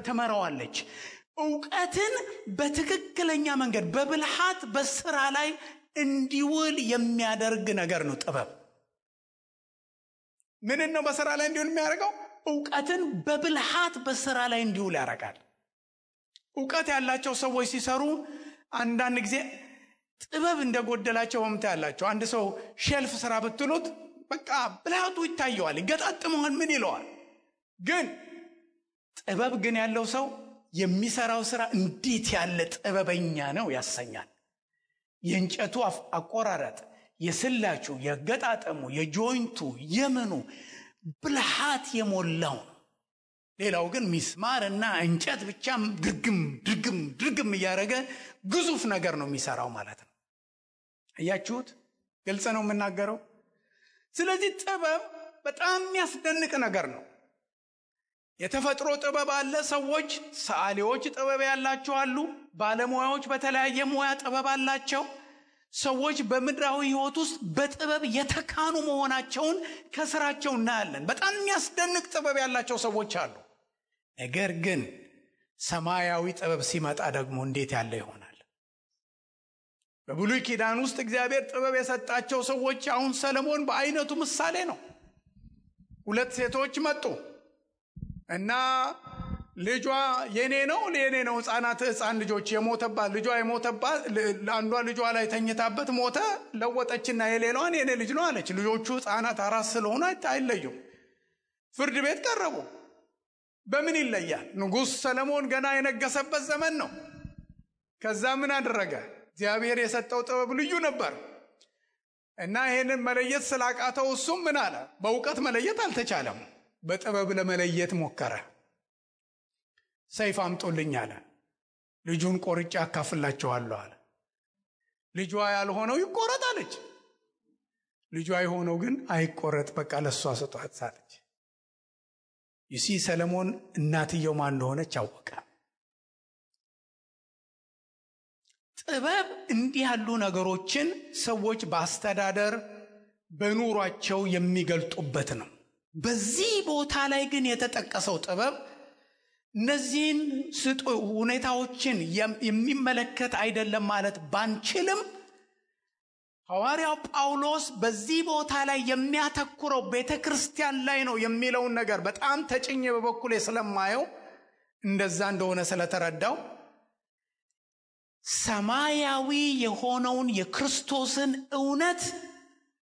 ትመራዋለች። ዕውቀትን በትክክለኛ መንገድ በብልሃት በስራ ላይ እንዲውል የሚያደርግ ነገር ነው ጥበብ። ምን ነው በስራ ላይ እንዲውል የሚያደርገው? ዕውቀትን በብልሃት በስራ ላይ እንዲውል ያደርጋል። ዕውቀት ያላቸው ሰዎች ሲሰሩ አንዳንድ ጊዜ ጥበብ እንደጎደላቸው ወምታ ያላቸው። አንድ ሰው ሼልፍ ስራ ብትሉት በቃ ብልሃቱ ይታየዋል፣ ይገጣጥመዋል፣ ምን ይለዋል። ግን ጥበብ ግን ያለው ሰው የሚሰራው ስራ እንዴት ያለ ጥበበኛ ነው ያሰኛል። የእንጨቱ አቆራረጥ፣ የስላቹ፣ የገጣጠሙ፣ የጆይንቱ፣ የምኑ ብልሃት የሞላው ነው። ሌላው ግን ሚስማርና እንጨት ብቻ ድርግም እያደረገ ግዙፍ ነገር ነው የሚሰራው ማለት ነው። እያችሁት ግልጽ ነው የምናገረው። ስለዚህ ጥበብ በጣም የሚያስደንቅ ነገር ነው። የተፈጥሮ ጥበብ አለ። ሰዎች ሰዓሊዎች ጥበብ ያላቸው አሉ። ባለሙያዎች በተለያየ ሙያ ጥበብ አላቸው። ሰዎች በምድራዊ ህይወት ውስጥ በጥበብ የተካኑ መሆናቸውን ከስራቸው እናያለን። በጣም የሚያስደንቅ ጥበብ ያላቸው ሰዎች አሉ። ነገር ግን ሰማያዊ ጥበብ ሲመጣ ደግሞ እንዴት ያለ ይሆናል? በብሉይ ኪዳን ውስጥ እግዚአብሔር ጥበብ የሰጣቸው ሰዎች አሁን ሰለሞን በአይነቱ ምሳሌ ነው። 2 ሴቶች መጡ እና ልጇ የኔ ነው ሕፃን ልጆች የሞተባት አንዷ ልጇ ላይ ተኝታበት ሞተ። ለወጠችና የሌላዋን የኔ ልጅ ነው አለች። ልጆቹ ሕፃናት 4 ስለሆኑ አይለዩም። ፍርድ ቤት ቀረቡ። በምን ይለያል? ንጉሥ ሰለሞን ገና የነገሰበት ዘመን ነው። ከዛ ምን አደረገ? እግዚአብሔር የሰጠው ጥበብ ልዩ ነበር እና ይሄንን መለየት ስላቃተው እሱም ምን አለ? በእውቀት መለየት አልተቻለም። በጥበብ ለመለየት ሞከረ። ሰይፍ አምጡልኝ አለ። ልጁን ቆርጬ አካፍላቸዋለሁ አለ። ልጇ ያልሆነው ይቆረጥ አለች። ልጇ የሆነው ግን አይቆረጥ፣ በቃ ለሷ ስጧት አለች። ይሲ ሰለሞን እናትየው ማን እንደሆነች አወቀ። ጥበብ እንዲህ ያሉ ነገሮችን ሰዎች በአስተዳደር በኑሯቸው የሚገልጡበት ነው። በዚህ ቦታ ላይ ግን የተጠቀሰው ጥበብ እነዚህን ሁኔታዎችን የሚመለከት አይደለም ማለት ባንችልም፣ ሐዋርያው ጳውሎስ በዚህ ቦታ ላይ የሚያተኩረው ቤተክርስቲያን ላይ ነው የሚለውን ነገር በጣም ተጭኜ በበኩሌ ስለማየው እንደዛ እንደሆነ ስለተረዳው ሰማያዊ የሆነውን የክርስቶስን እውነት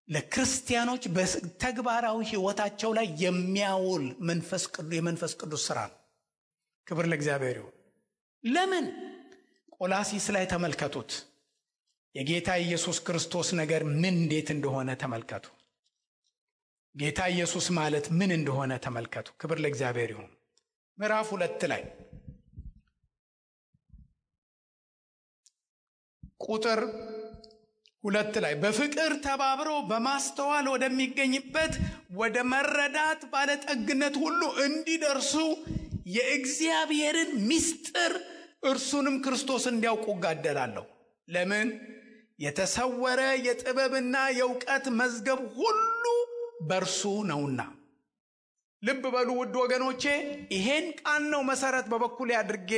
ለክርስቲያኖች በተግባራዊ ሕይወታቸው ላይ የሚያውል የመንፈስ ቅዱስ ሥራ ነው። ክብር ለእግዚአብሔር ይሁን። ለምን? ቆላሲስ ላይ ተመልከቱት። የጌታ ኢየሱስ ክርስቶስ ነገር ምን እንዴት እንደሆነ ተመልከቱ። ጌታ ኢየሱስ ማለት ምን እንደሆነ ተመልከቱ። ክብር ለእግዚአብሔር ይሁን። ምዕራፍ 2 ላይ ቁጥር 2 ላይ በፍቅር ተባብረው በማስተዋል ወደሚገኝበት ወደ መረዳት ባለጠግነት ሁሉ እንዲደርሱ የእግዚአብሔርን ምስጢር እርሱንም ክርስቶስ እንዲያውቁ እጋደላለሁ። ለምን? የተሰወረ የጥበብና የእውቀት መዝገብ ሁሉ በእርሱ ነውና ልብ በሉ ውድ ወገኖቼ፣ ይሄን ቃል ነው መሰረት በበኩሌ አድርጌ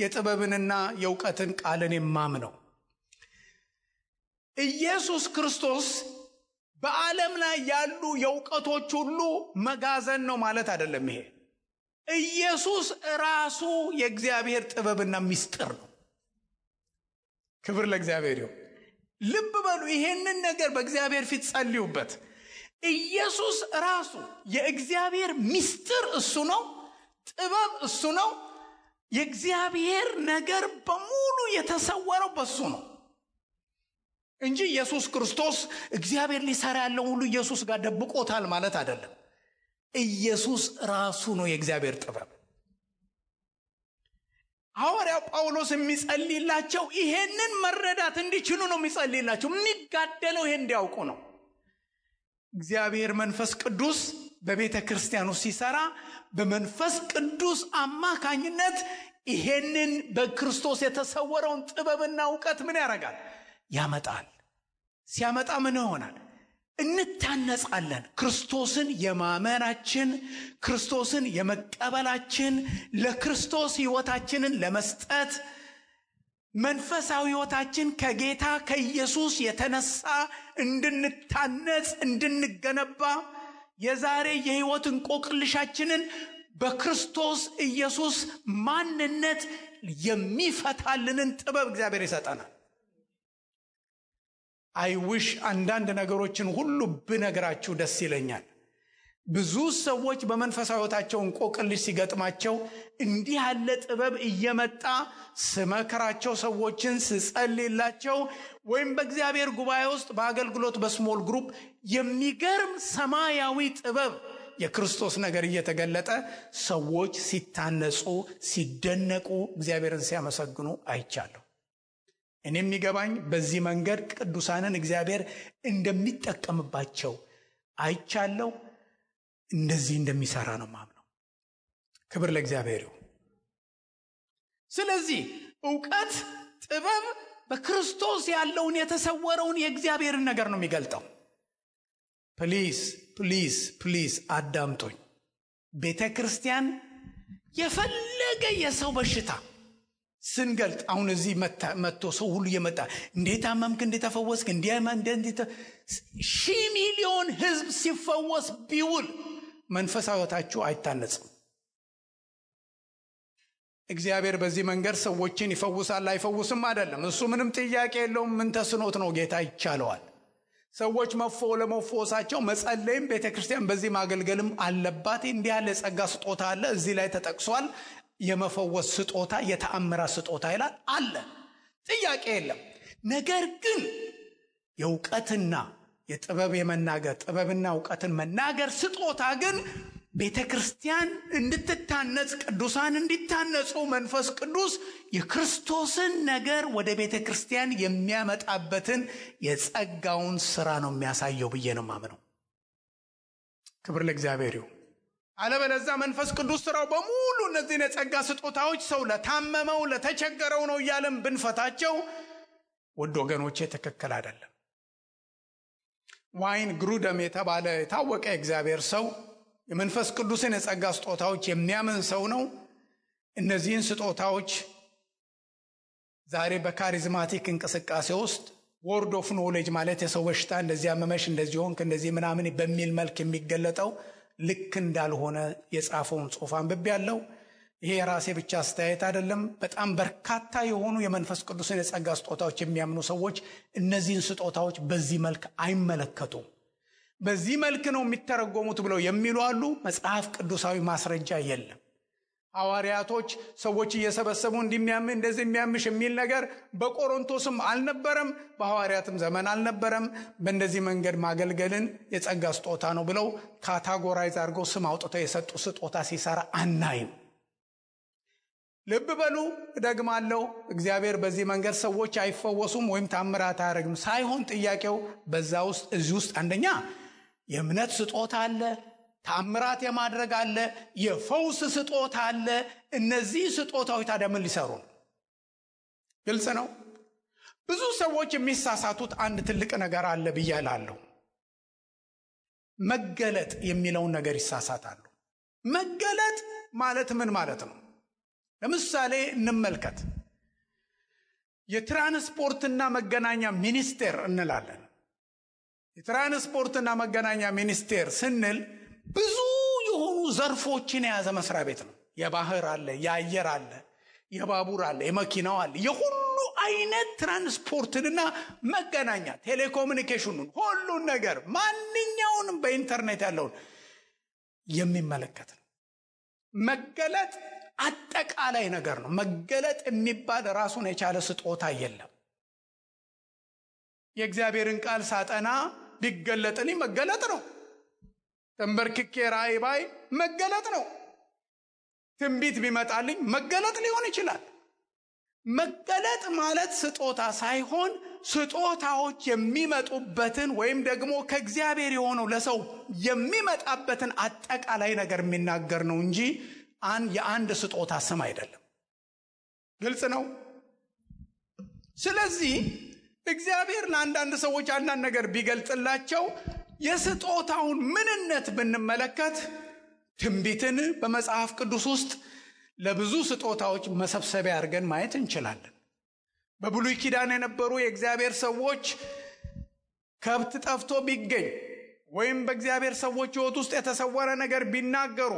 የጥበብንና የእውቀትን ቃልን የማምነው። ኢየሱስ ክርስቶስ በዓለም ላይ ያሉ የእውቀቶች ሁሉ መጋዘን ነው ማለት አይደለም። ይሄ ኢየሱስ ራሱ የእግዚአብሔር ጥበብና ምስጢር ነው። ክብር ለእግዚአብሔር ይሁን። ልብ በሉ ይሄንን ነገር በእግዚአብሔር ፊት ጸልዩበት። ኢየሱስ ራሱ የእግዚአብሔር ምስጢር እሱ ነው፣ ጥበብ እሱ ነው። የእግዚአብሔር ነገር በሙሉ የተሰወረው በሱ ነው እንጂ ኢየሱስ ክርስቶስ እግዚአብሔር ሊሰራ ያለው ሁሉ ኢየሱስ ጋር ደብቆታል ማለት አይደለም። ኢየሱስ ራሱ ነው የእግዚአብሔር ጥበብ። ሐዋርያው ጳውሎስ የሚጸልይላቸው ይሄንን መረዳት እንዲችሉ ነው የሚጸልይላቸው። የሚጋደለው ይሄን እንዲያውቁ ነው። እግዚአብሔር መንፈስ ቅዱስ በቤተ ክርስቲያኑ ሲሰራ በመንፈስ ቅዱስ አማካኝነት ይሄንን በክርስቶስ የተሰወረውን ጥበብና ዕውቀት ምን ያደርጋል? ያመጣል። ሲያመጣ ምን ይሆናል? እንታነጻለን። ክርስቶስን የማመናችን፣ ክርስቶስን የመቀበላችን፣ ለክርስቶስ ሕይወታችንን ለመስጠት መንፈሳዊ ሕይወታችን ከጌታ ከኢየሱስ የተነሳ እንድንታነጽ እንድንገነባ የዛሬ የሕይወት እንቆቅልሻችንን በክርስቶስ ኢየሱስ ማንነት የሚፈታልንን ጥበብ እግዚአብሔር ይሰጠናል። አይውሽ አንዳንድ ነገሮችን ሁሉ ብነግራችሁ ደስ ይለኛል። ብዙ ሰዎች በመንፈሳዊ ሕይወታቸው እንቆቅልሽ ሲገጥማቸው እንዲህ ያለ ጥበብ እየመጣ ስመክራቸው፣ ሰዎችን ስጸልይላቸው፣ ወይም በእግዚአብሔር ጉባኤ ውስጥ በአገልግሎት በስሞል ግሩፕ የሚገርም ሰማያዊ ጥበብ የክርስቶስ ነገር እየተገለጠ ሰዎች ሲታነጹ፣ ሲደነቁ፣ እግዚአብሔርን ሲያመሰግኑ አይቻለሁ። እኔ የሚገባኝ በዚህ መንገድ ቅዱሳንን እግዚአብሔር እንደሚጠቀምባቸው አይቻለሁ። እንደዚህ እንደሚሰራ ነው ማምነው። ክብር ለእግዚአብሔር ይሁን። ስለዚህ ዕውቀት፣ ጥበብ በክርስቶስ ያለውን የተሰወረውን የእግዚአብሔርን ነገር ነው የሚገልጠው። ፕሊዝ ፕሊዝ ፕሊዝ አዳምጦኝ። ቤተ ክርስቲያን የፈለገ የሰው በሽታ ስንገልጥ አሁን እዚህ መጥቶ ሰው ሁሉ እየመጣ እንዴት አመምክ፣ እንዴት ተፈወስክ፣ እንዴት 1,000 ሚሊዮን ህዝብ ሲፈወስ ቢውል መንፈሳዊ ሕይወታችሁ አይታነጽም። እግዚአብሔር በዚህ መንገድ ሰዎችን ይፈውሳል አይፈውስም አይደለም። እሱ ምንም ጥያቄ የለውም። ምን ተስኖት ነው? ጌታ ይቻለዋል። ሰዎች ለመፈወሳቸው መጸለይም ቤተክርስቲያን በዚህ ማገልገልም አለባት። እንዲህ ያለ ጸጋ ስጦታ አለ፣ እዚህ ላይ ተጠቅሷል። የመፈወስ ስጦታ፣ የተአምራት ስጦታ ይላል አለ። ጥያቄ የለም። ነገር ግን የእውቀትና የጥበብ የመናገር ጥበብና ዕውቀትን መናገር ስጦታ ግን ቤተክርስቲያን እንድትታነጽ፣ ቅዱሳን እንዲታነጹ መንፈስ ቅዱስ የክርስቶስን ነገር ወደ ቤተክርስቲያን የሚያመጣበትን የጸጋውን ሥራ ነው የሚያሳየው ብዬ ነው ማምነው። ክብር ለእግዚአብሔር ይሁን። አለበለዚያ መንፈስ ቅዱስ ሥራው በሙሉ እነዚህን የጸጋ ስጦታዎች ሰው ለታመመው ለተቸገረው ነው እያለን ብንፈታቸው ውድ ወገኖቼ ትክክል አይደለም። ዋይን ግሩደም የተባለ የታወቀ እግዚአብሔር ሰው የመንፈስ ቅዱስን የጸጋ ስጦታዎች የሚያምን ሰው ነው። እነዚህን ስጦታዎች ዛሬ በካሪዝማቲክ እንቅስቃሴ ውስጥ ወርድ ኦፍ ኖሌጅ ማለት የሰው በሽታ እንደዚህ አመመሽ፣ እንደዚህ ሆንክ፣ እንደዚህ ምናምን በሚል መልክ የሚገለጠው ልክ እንዳልሆነ የጻፈውን ጽሑፍ አንብቤያለሁ። ይሄ የራሴ ብቻ አስተያየት አይደለም። በጣም በርካታ የሆኑ የመንፈስ ቅዱስን የጸጋ ስጦታዎች የሚያምኑ ሰዎች እነዚህን ስጦታዎች በዚህ መልክ አይመለከቱም። በዚህ መልክ ነው የሚተረጎሙት ብለው የሚሉ አሉ። መጽሐፍ ቅዱሳዊ ማስረጃ የለም። ሐዋርያቶች ሰዎች እየሰበሰቡ እንደዚህ የሚያምሽ የሚል ነገር በቆሮንቶስም አልነበረም፣ በሐዋርያትም ዘመን አልነበረም። በእንደዚህ መንገድ ማገልገልን የጸጋ ስጦታ ነው ብለው ካታጎራይዝ አድርገው ስም አውጥተው የሰጡ ስጦታ ሲሰራ አናይም። ልብ በሉ፣ እደግማለሁ። እግዚአብሔር በዚህ መንገድ ሰዎች አይፈወሱም ወይም ታምራት አያደርግም ሳይሆን ጥያቄው በዛ ውስጥ እዚህ ውስጥ አንደኛ የእምነት ስጦታ አለ፣ ታምራት የማድረግ አለ፣ የፈውስ ስጦታ አለ። እነዚህ ስጦታዎች ታዲያ ምን ሊሰሩ ነው? ግልጽ ነው። ብዙ ሰዎች የሚሳሳቱት አንድ ትልቅ ነገር አለ ብዬ እላለሁ። መገለጥ የሚለውን ነገር ይሳሳታሉ። መገለጥ ማለት ምን ማለት ነው? ለምሳሌ እንመልከት። የትራንስፖርትና መገናኛ ሚኒስቴር እንላለን። የትራንስፖርትና መገናኛ ሚኒስቴር ስንል ብዙ የሆኑ ዘርፎችን የያዘ መስሪያ ቤት ነው። የባህር አለ፣ የአየር አለ፣ የባቡር አለ፣ የመኪናው አለ። የሁሉ አይነት ትራንስፖርትና መገናኛ ቴሌኮሙኒኬሽኑን ሁሉን ነገር ማንኛውንም በኢንተርኔት ያለውን የሚመለከት ነው። መገለጥ አጠቃላይ ነገር ነው። መገለጥ የሚባል ራሱን የቻለ ስጦታ የለም። የእግዚአብሔርን ቃል ሳጠና ቢገለጥልኝ መገለጥ ነው። ተንበርክኬ ራእይ ባይ መገለጥ ነው። ትንቢት ቢመጣልኝ መገለጥ ሊሆን ይችላል። መገለጥ ማለት ስጦታ ሳይሆን ስጦታዎች የሚመጡበትን ወይም ደግሞ ከእግዚአብሔር የሆነው ለሰው የሚመጣበትን አጠቃላይ ነገር የሚናገር ነው እንጂ የአንድ ስጦታ ስም አይደለም። ግልጽ ነው። ስለዚህ እግዚአብሔር ለአንዳንድ ሰዎች አንዳንድ ነገር ቢገልጽላቸው የስጦታውን ምንነት ብንመለከት ትንቢትን በመጽሐፍ ቅዱስ ውስጥ ለብዙ ስጦታዎች መሰብሰቢያ አድርገን ማየት እንችላለን። በብሉይ ኪዳን የነበሩ የእግዚአብሔር ሰዎች ከብት ጠፍቶ ቢገኝ ወይም በእግዚአብሔር ሰዎች ሕይወት ውስጥ የተሰወረ ነገር ቢናገሩ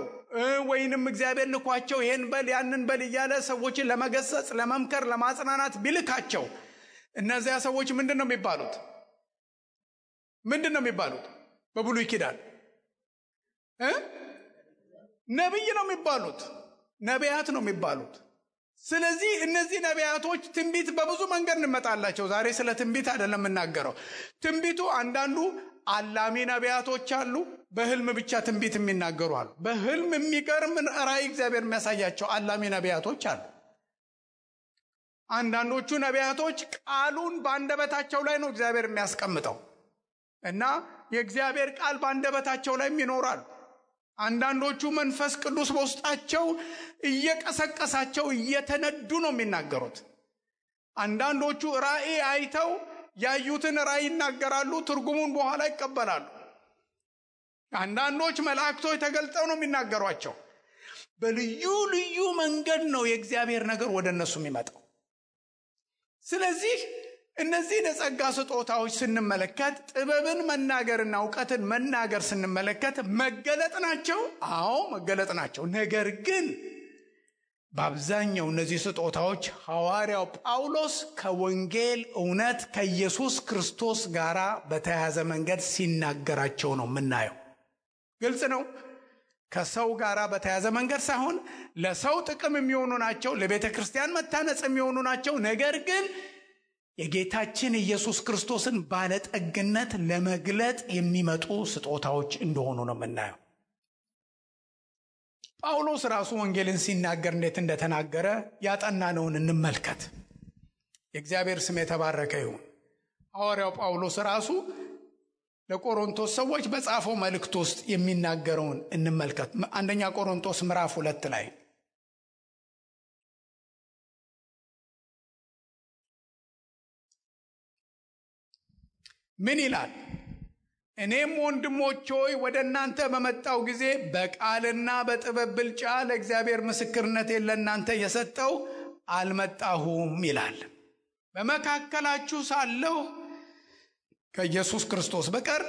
ወይንም እግዚአብሔር ልኳቸው ይሄን በል ያንን በል እያለ ሰዎችን ለመገሰጽ፣ ለመምከር፣ ለማጽናናት ቢልካቸው እነዚያ ሰዎች ምንድን ነው የሚባሉት? በብሉይ ኪዳን ነቢይ ነው የሚባሉት፣ ነቢያት ነው የሚባሉት። ስለዚህ እነዚህ ነቢያቶች ትንቢት በብዙ መንገድ እንመጣላቸው። ዛሬ ስለ ትንቢት አይደለም የምናገረው። ትንቢቱ አንዳንዱ አላሚ ነቢያቶች አሉ፣ በህልም ብቻ ትንቢት የሚናገሩ አሉ። በህልም የሚገርም ራእይ እግዚአብሔር የሚያሳያቸው አላሚ ነቢያቶች አሉ። አንዳንዶቹ ነቢያቶች ቃሉን በአንደበታቸው ላይ ነው እግዚአብሔር የሚያስቀምጠው እና የእግዚአብሔር ቃል በአንደበታቸው ላይም ይኖራል። አንዳንዶቹ መንፈስ ቅዱስ በውስጣቸው እየቀሰቀሳቸው እየተነዱ ነው የሚናገሩት። አንዳንዶቹ ራእይ አይተው ያዩትን ራእይ ይናገራሉ፣ ትርጉሙን በኋላ ይቀበላሉ። አንዳንዶች መላእክቶች ተገልጠው ነው የሚናገሯቸው። በልዩ ልዩ መንገድ ነው የእግዚአብሔር ነገር ወደ እነሱ የሚመጣው። ስለዚህ እነዚህ የጸጋ ስጦታዎች ስንመለከት ጥበብን መናገርና ዕውቀትን መናገር ስንመለከት መገለጥ ናቸው። አዎ መገለጥ ናቸው። ነገር ግን በአብዛኛው እነዚህ ስጦታዎች ሐዋርያው ጳውሎስ ከወንጌል እውነት ከኢየሱስ ክርስቶስ ጋር በተያያዘ መንገድ ሲናገራቸው ነው የምናየው። ግልጽ ነው። ከሰው ጋር በተያያዘ መንገድ ሳይሆን ለሰው ጥቅም የሚሆኑ ናቸው፣ ለቤተ ክርስቲያን መታነጽ የሚሆኑ ናቸው። ነገር ግን የጌታችን ኢየሱስ ክርስቶስን ባለጠግነት ለመግለጥ የሚመጡ ስጦታዎች እንደሆኑ ነው የምናየው። ጳውሎስ ራሱ ወንጌልን ሲናገር እንዴት እንደተናገረ ያጠናነውን እንመልከት። የእግዚአብሔር ስም የተባረከ ይሁን። ሐዋርያው ጳውሎስ ራሱ ለቆሮንቶስ ሰዎች በጻፈው መልእክት ውስጥ የሚናገረውን እንመልከት። አንደኛ ቆሮንቶስ ምዕራፍ 2 ላይ ምን ይላል? እኔም ወንድሞች ሆይ ወደ እናንተ በመጣው ጊዜ በቃልና በጥበብ ብልጫ ለእግዚአብሔር ምስክርነቴን ለእናንተ የሰጠው አልመጣሁም ይላል። በመካከላችሁ ሳለሁ ከኢየሱስ ክርስቶስ በቀር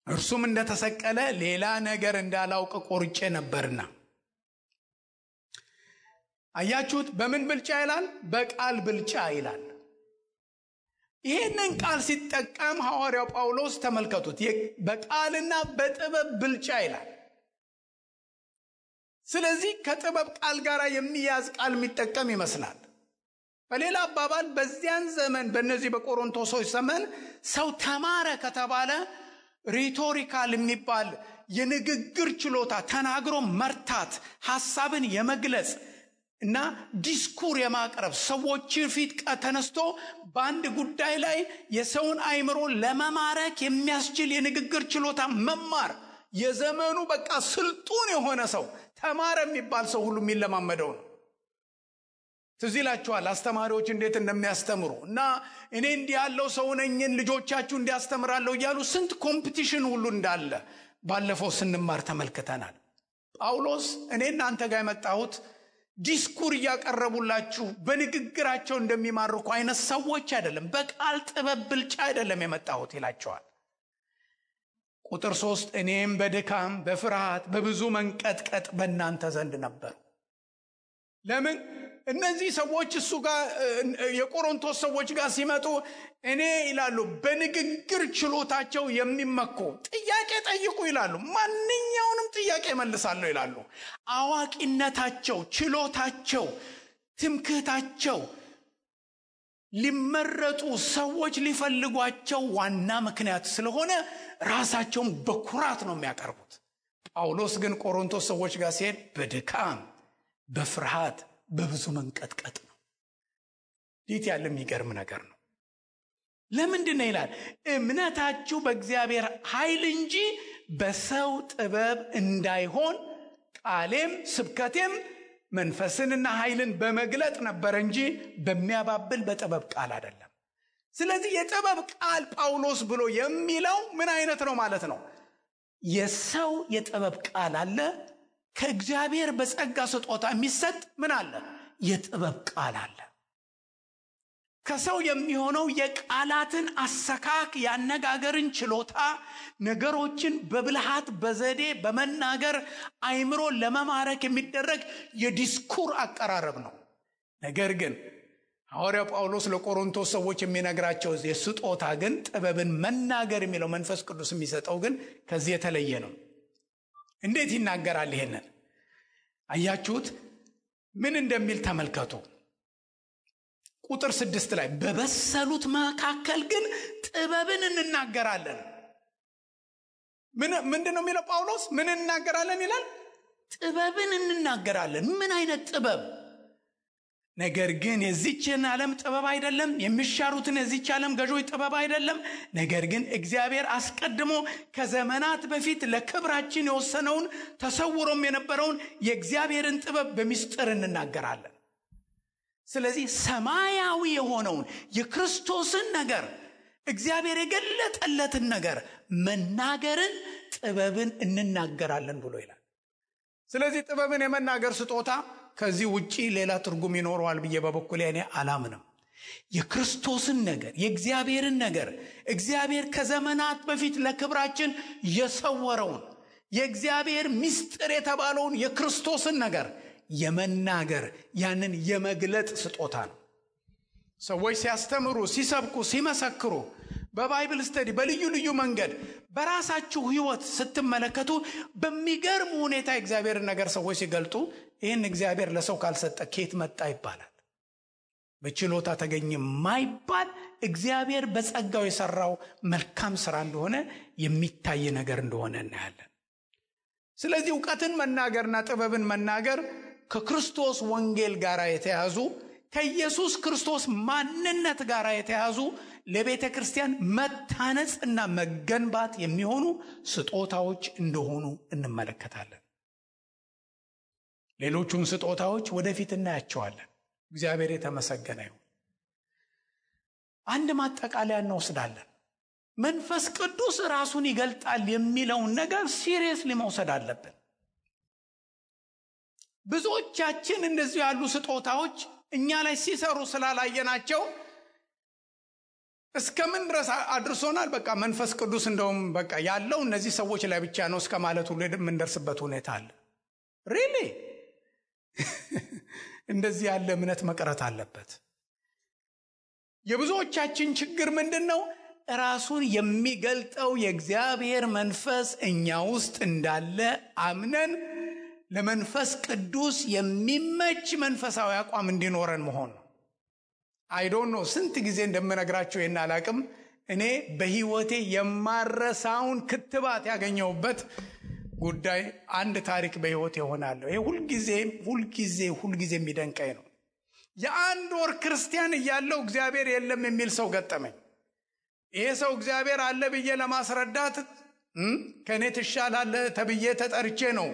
እርሱም እንደተሰቀለ ሌላ ነገር እንዳላውቅ ቆርጬ ነበርና። አያችሁት? በምን ብልጫ ይላል? በቃል ብልጫ ይላል። ይህንን ቃል ሲጠቀም ሐዋርያው ጳውሎስ ተመልከቱት፣ በቃልና በጥበብ ብልጫ ይላል። ስለዚህ ከጥበብ ቃል ጋር የሚያዝ ቃል የሚጠቀም ይመስላል። በሌላ አባባል በዚያን ዘመን በእነዚህ በቆሮንቶሶች ዘመን ሰው ተማረ ከተባለ ሪቶሪካል የሚባል የንግግር ችሎታ፣ ተናግሮ መርታት፣ ሐሳብን የመግለጽ እና ዲስኩር የማቅረብ ሰዎች ፊት ተነስቶ በአንድ ጉዳይ ላይ የሰውን አእምሮ ለመማረክ የሚያስችል የንግግር ችሎታ መማር የዘመኑ በቃ ስልጡን የሆነ ሰው ተማረ የሚባል ሰው ሁሉ የሚለማመደው ነው። ትዝ ይላችኋል አስተማሪዎች እንዴት እንደሚያስተምሩ እና እኔ እንዲህ ያለው ሰው ነኝን ልጆቻችሁ እንዲያስተምራለሁ እያሉ ስንት ኮምፒቲሽን ሁሉ እንዳለ ባለፈው ስንማር ተመልክተናል። ጳውሎስ እኔ እናንተ ጋር የመጣሁት ዲስኩር እያቀረቡላችሁ በንግግራቸው እንደሚማርኩ አይነት ሰዎች አይደለም፣ በቃል ጥበብ ብልጫ አይደለም የመጣሁት ይላቸዋል። ቁጥር 3 እኔም በድካም በፍርሃት በብዙ መንቀጥቀጥ በእናንተ ዘንድ ነበር። ለምን እነዚህ ሰዎች እሱ ጋር የቆሮንቶስ ሰዎች ጋር ሲመጡ እኔ ይላሉ በንግግር ችሎታቸው የሚመኩ ጥያቄ ጠይቁ ይላሉ፣ ማንኛውንም ጥያቄ መልሳለሁ ይላሉ። አዋቂነታቸው፣ ችሎታቸው፣ ትምክህታቸው ሊመረጡ ሰዎች ሊፈልጓቸው ዋና ምክንያት ስለሆነ ራሳቸውን በኩራት ነው የሚያቀርቡት። ጳውሎስ ግን ቆሮንቶስ ሰዎች ጋር ሲሄድ በድካም በፍርሃት በብዙ መንቀጥቀጥ ነው። ይህ ያለ የሚገርም ነገር ነው። ለምንድን ነው ይላል? እምነታችሁ በእግዚአብሔር ኃይል እንጂ በሰው ጥበብ እንዳይሆን ቃሌም ስብከቴም መንፈስንና ኃይልን በመግለጥ ነበር እንጂ በሚያባብል በጥበብ ቃል አይደለም። ስለዚህ የጥበብ ቃል ጳውሎስ ብሎ የሚለው ምን አይነት ነው ማለት ነው? የሰው የጥበብ ቃል አለ፣ ከእግዚአብሔር በጸጋ ስጦታ የሚሰጥ ምን አለ? የጥበብ ቃል አለ። ከሰው የሚሆነው የቃላትን አሰካክ፣ ያነጋገርን ችሎታ፣ ነገሮችን በብልሃት በዘዴ በመናገር አይምሮ ለመማረክ የሚደረግ የዲስኩር አቀራረብ ነው። ነገር ግን ሐዋርያው ጳውሎስ ለቆሮንቶስ ሰዎች የሚነግራቸው የስጦታ ግን ጥበብን መናገር የሚለው መንፈስ ቅዱስ የሚሰጠው ግን ከዚህ የተለየ ነው። እንዴት ይናገራል? ይሄንን አያችሁት? ምን እንደሚል ተመልከቱ። ቁጥር 6 ላይ በበሰሉት መካከል ግን ጥበብን እንናገራለን። ምንድነው የሚለው ጳውሎስ? ምን እንናገራለን ይላል? ጥበብን እንናገራለን። ምን አይነት ጥበብ? ነገር ግን የዚችን ዓለም ጥበብ አይደለም፣ የሚሻሩትን የዚች ዓለም ገዦች ጥበብ አይደለም። ነገር ግን እግዚአብሔር አስቀድሞ ከዘመናት በፊት ለክብራችን የወሰነውን ተሰውሮም የነበረውን የእግዚአብሔርን ጥበብ በሚስጥር እንናገራለን። ስለዚህ ሰማያዊ የሆነውን የክርስቶስን ነገር፣ እግዚአብሔር የገለጠለትን ነገር መናገርን ጥበብን እንናገራለን ብሎ ይላል። ስለዚህ ጥበብን የመናገር ስጦታ ከዚህ ውጪ ሌላ ትርጉም ይኖረዋል ብዬ በበኩሌ እኔ አላምንም። የክርስቶስን ነገር፣ የእግዚአብሔርን ነገር፣ እግዚአብሔር ከዘመናት በፊት ለክብራችን የሰወረውን የእግዚአብሔር ምስጢር የተባለውን የክርስቶስን ነገር የመናገር ያንን የመግለጥ ስጦታ ነው። ሰዎች ሲያስተምሩ፣ ሲሰብኩ፣ ሲመሰክሩ በባይብል ስተዲ በልዩ ልዩ መንገድ በራሳችሁ ህይወት ስትመለከቱ በሚገርም ሁኔታ እግዚአብሔርን ነገር ሰዎች ሲገልጡ ይህን እግዚአብሔር ለሰው ካልሰጠ ከየት መጣ ይባላል። በችሎታ ተገኘ ማይባል እግዚአብሔር በጸጋው የሰራው መልካም ስራ እንደሆነ የሚታይ ነገር እንደሆነ እናያለን። ስለዚህ ዕውቀትን መናገርና ጥበብን መናገር ከክርስቶስ ወንጌል ጋር የተያዙ፣ ከኢየሱስ ክርስቶስ ማንነት ጋር የተያዙ፣ ለቤተ ክርስቲያን መታነጽ እና መገንባት የሚሆኑ ስጦታዎች እንደሆኑ እንመለከታለን። ሌሎቹን ስጦታዎች ወደፊት እናያቸዋለን። እግዚአብሔር የተመሰገነ ይሁን። አንድ ማጠቃለያ እንወስዳለን። መንፈስ ቅዱስ ራሱን ይገልጣል የሚለውን ነገር ሲሪየስሊ መውሰድ አለብን። ብዙዎቻችን እንደዚህ ያሉ ስጦታዎች እኛ ላይ ሲሰሩ ስላላየናቸው እስከምን ድረስ አድርሶናል? በቃ መንፈስ ቅዱስ እንደውም በቃ ያለው እነዚህ ሰዎች ላይ ብቻ ነው እስከ ማለት ሁሉ የምንደርስበት ሁኔታ አለ። ሪሊ እንደዚህ ያለ እምነት መቅረት አለበት። የብዙዎቻችን ችግር ምንድነው? ራሱን የሚገልጠው የእግዚአብሔር መንፈስ እኛ ውስጥ እንዳለ አምነን ለመንፈስ ቅዱስ የሚመች መንፈሳዊ አቋም እንዲኖረን መሆን ነው። አይ ዶንት ኖ ስንት ጊዜ እንደምነግራችሁ ይሄን አላቅም። እኔ በህይወቴ የማረሳውን ክትባት ያገኘውበት ጉዳይ አንድ ታሪክ በህይወቴ ሆናለሁ። ይሄ ሁልጊዜ የሚደንቀኝ ነው። የአንድ ወር ክርስቲያን እያለው እግዚአብሔር የለም የሚል ሰው ገጠመኝ። ይሄ ሰው እግዚአብሔር አለ ብዬ ለማስረዳት ከኔ ትሻላለህ ተብዬ ተጠርቼ ነው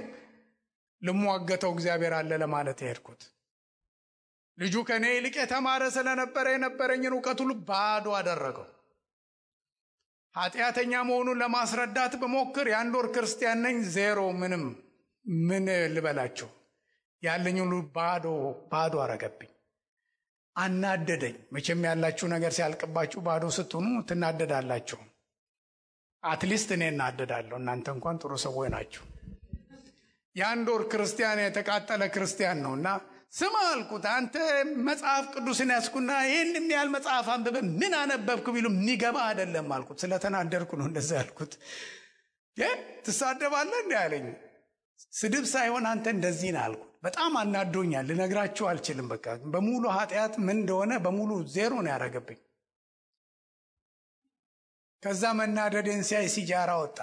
ልሟገተው እግዚአብሔር አለ ለማለት የሄድኩት። ልጁ ከኔ ይልቅ የተማረ ስለነበረ የነበረኝን ዕውቀት ሁሉ ባዶ አደረገው። ኃጢአተኛ መሆኑን ለማስረዳት በሞክር የአንድ ወር ክርስቲያን ነኝ፣ ዜሮ፣ ምንም ምን ልበላችሁ ያለኝ ሁሉ ባዶ አረገብኝ፣ አናደደኝ። መቼም ያላችሁ ነገር ሲያልቅባችሁ ባዶ ስትሆኑ ትናደዳላችሁ። አትሊስት እኔ እናደዳለሁ፣ እናንተ እንኳን ጥሩ ሰዎች ናችሁ። የአንድ ወር ክርስቲያን የተቃጠለ ክርስቲያን ነውና ስማ አልኩት፣ አንተ መጽሐፍ ቅዱስን ያስኩና ይህን የሚያህል መጽሐፍ አንብበ ምን አነበብክ ቢሉ የሚገባ አይደለም አልኩት። ስለተናደርኩ ነው እንደዛ ያልኩት። ትሳደባለህ እንዴ አለኝ። ስድብ ሳይሆን አንተ እንደዚህ ነህ አልኩት። በጣም አናዶኛል፣ ልነግራችሁ አልችልም። በቃ በሙሉ ኃጢአት ምን እንደሆነ በሙሉ ዜሮ ነው ያደረገብኝ። ከዛ መናደዴን ሲያይ ሲጃራ ወጣ።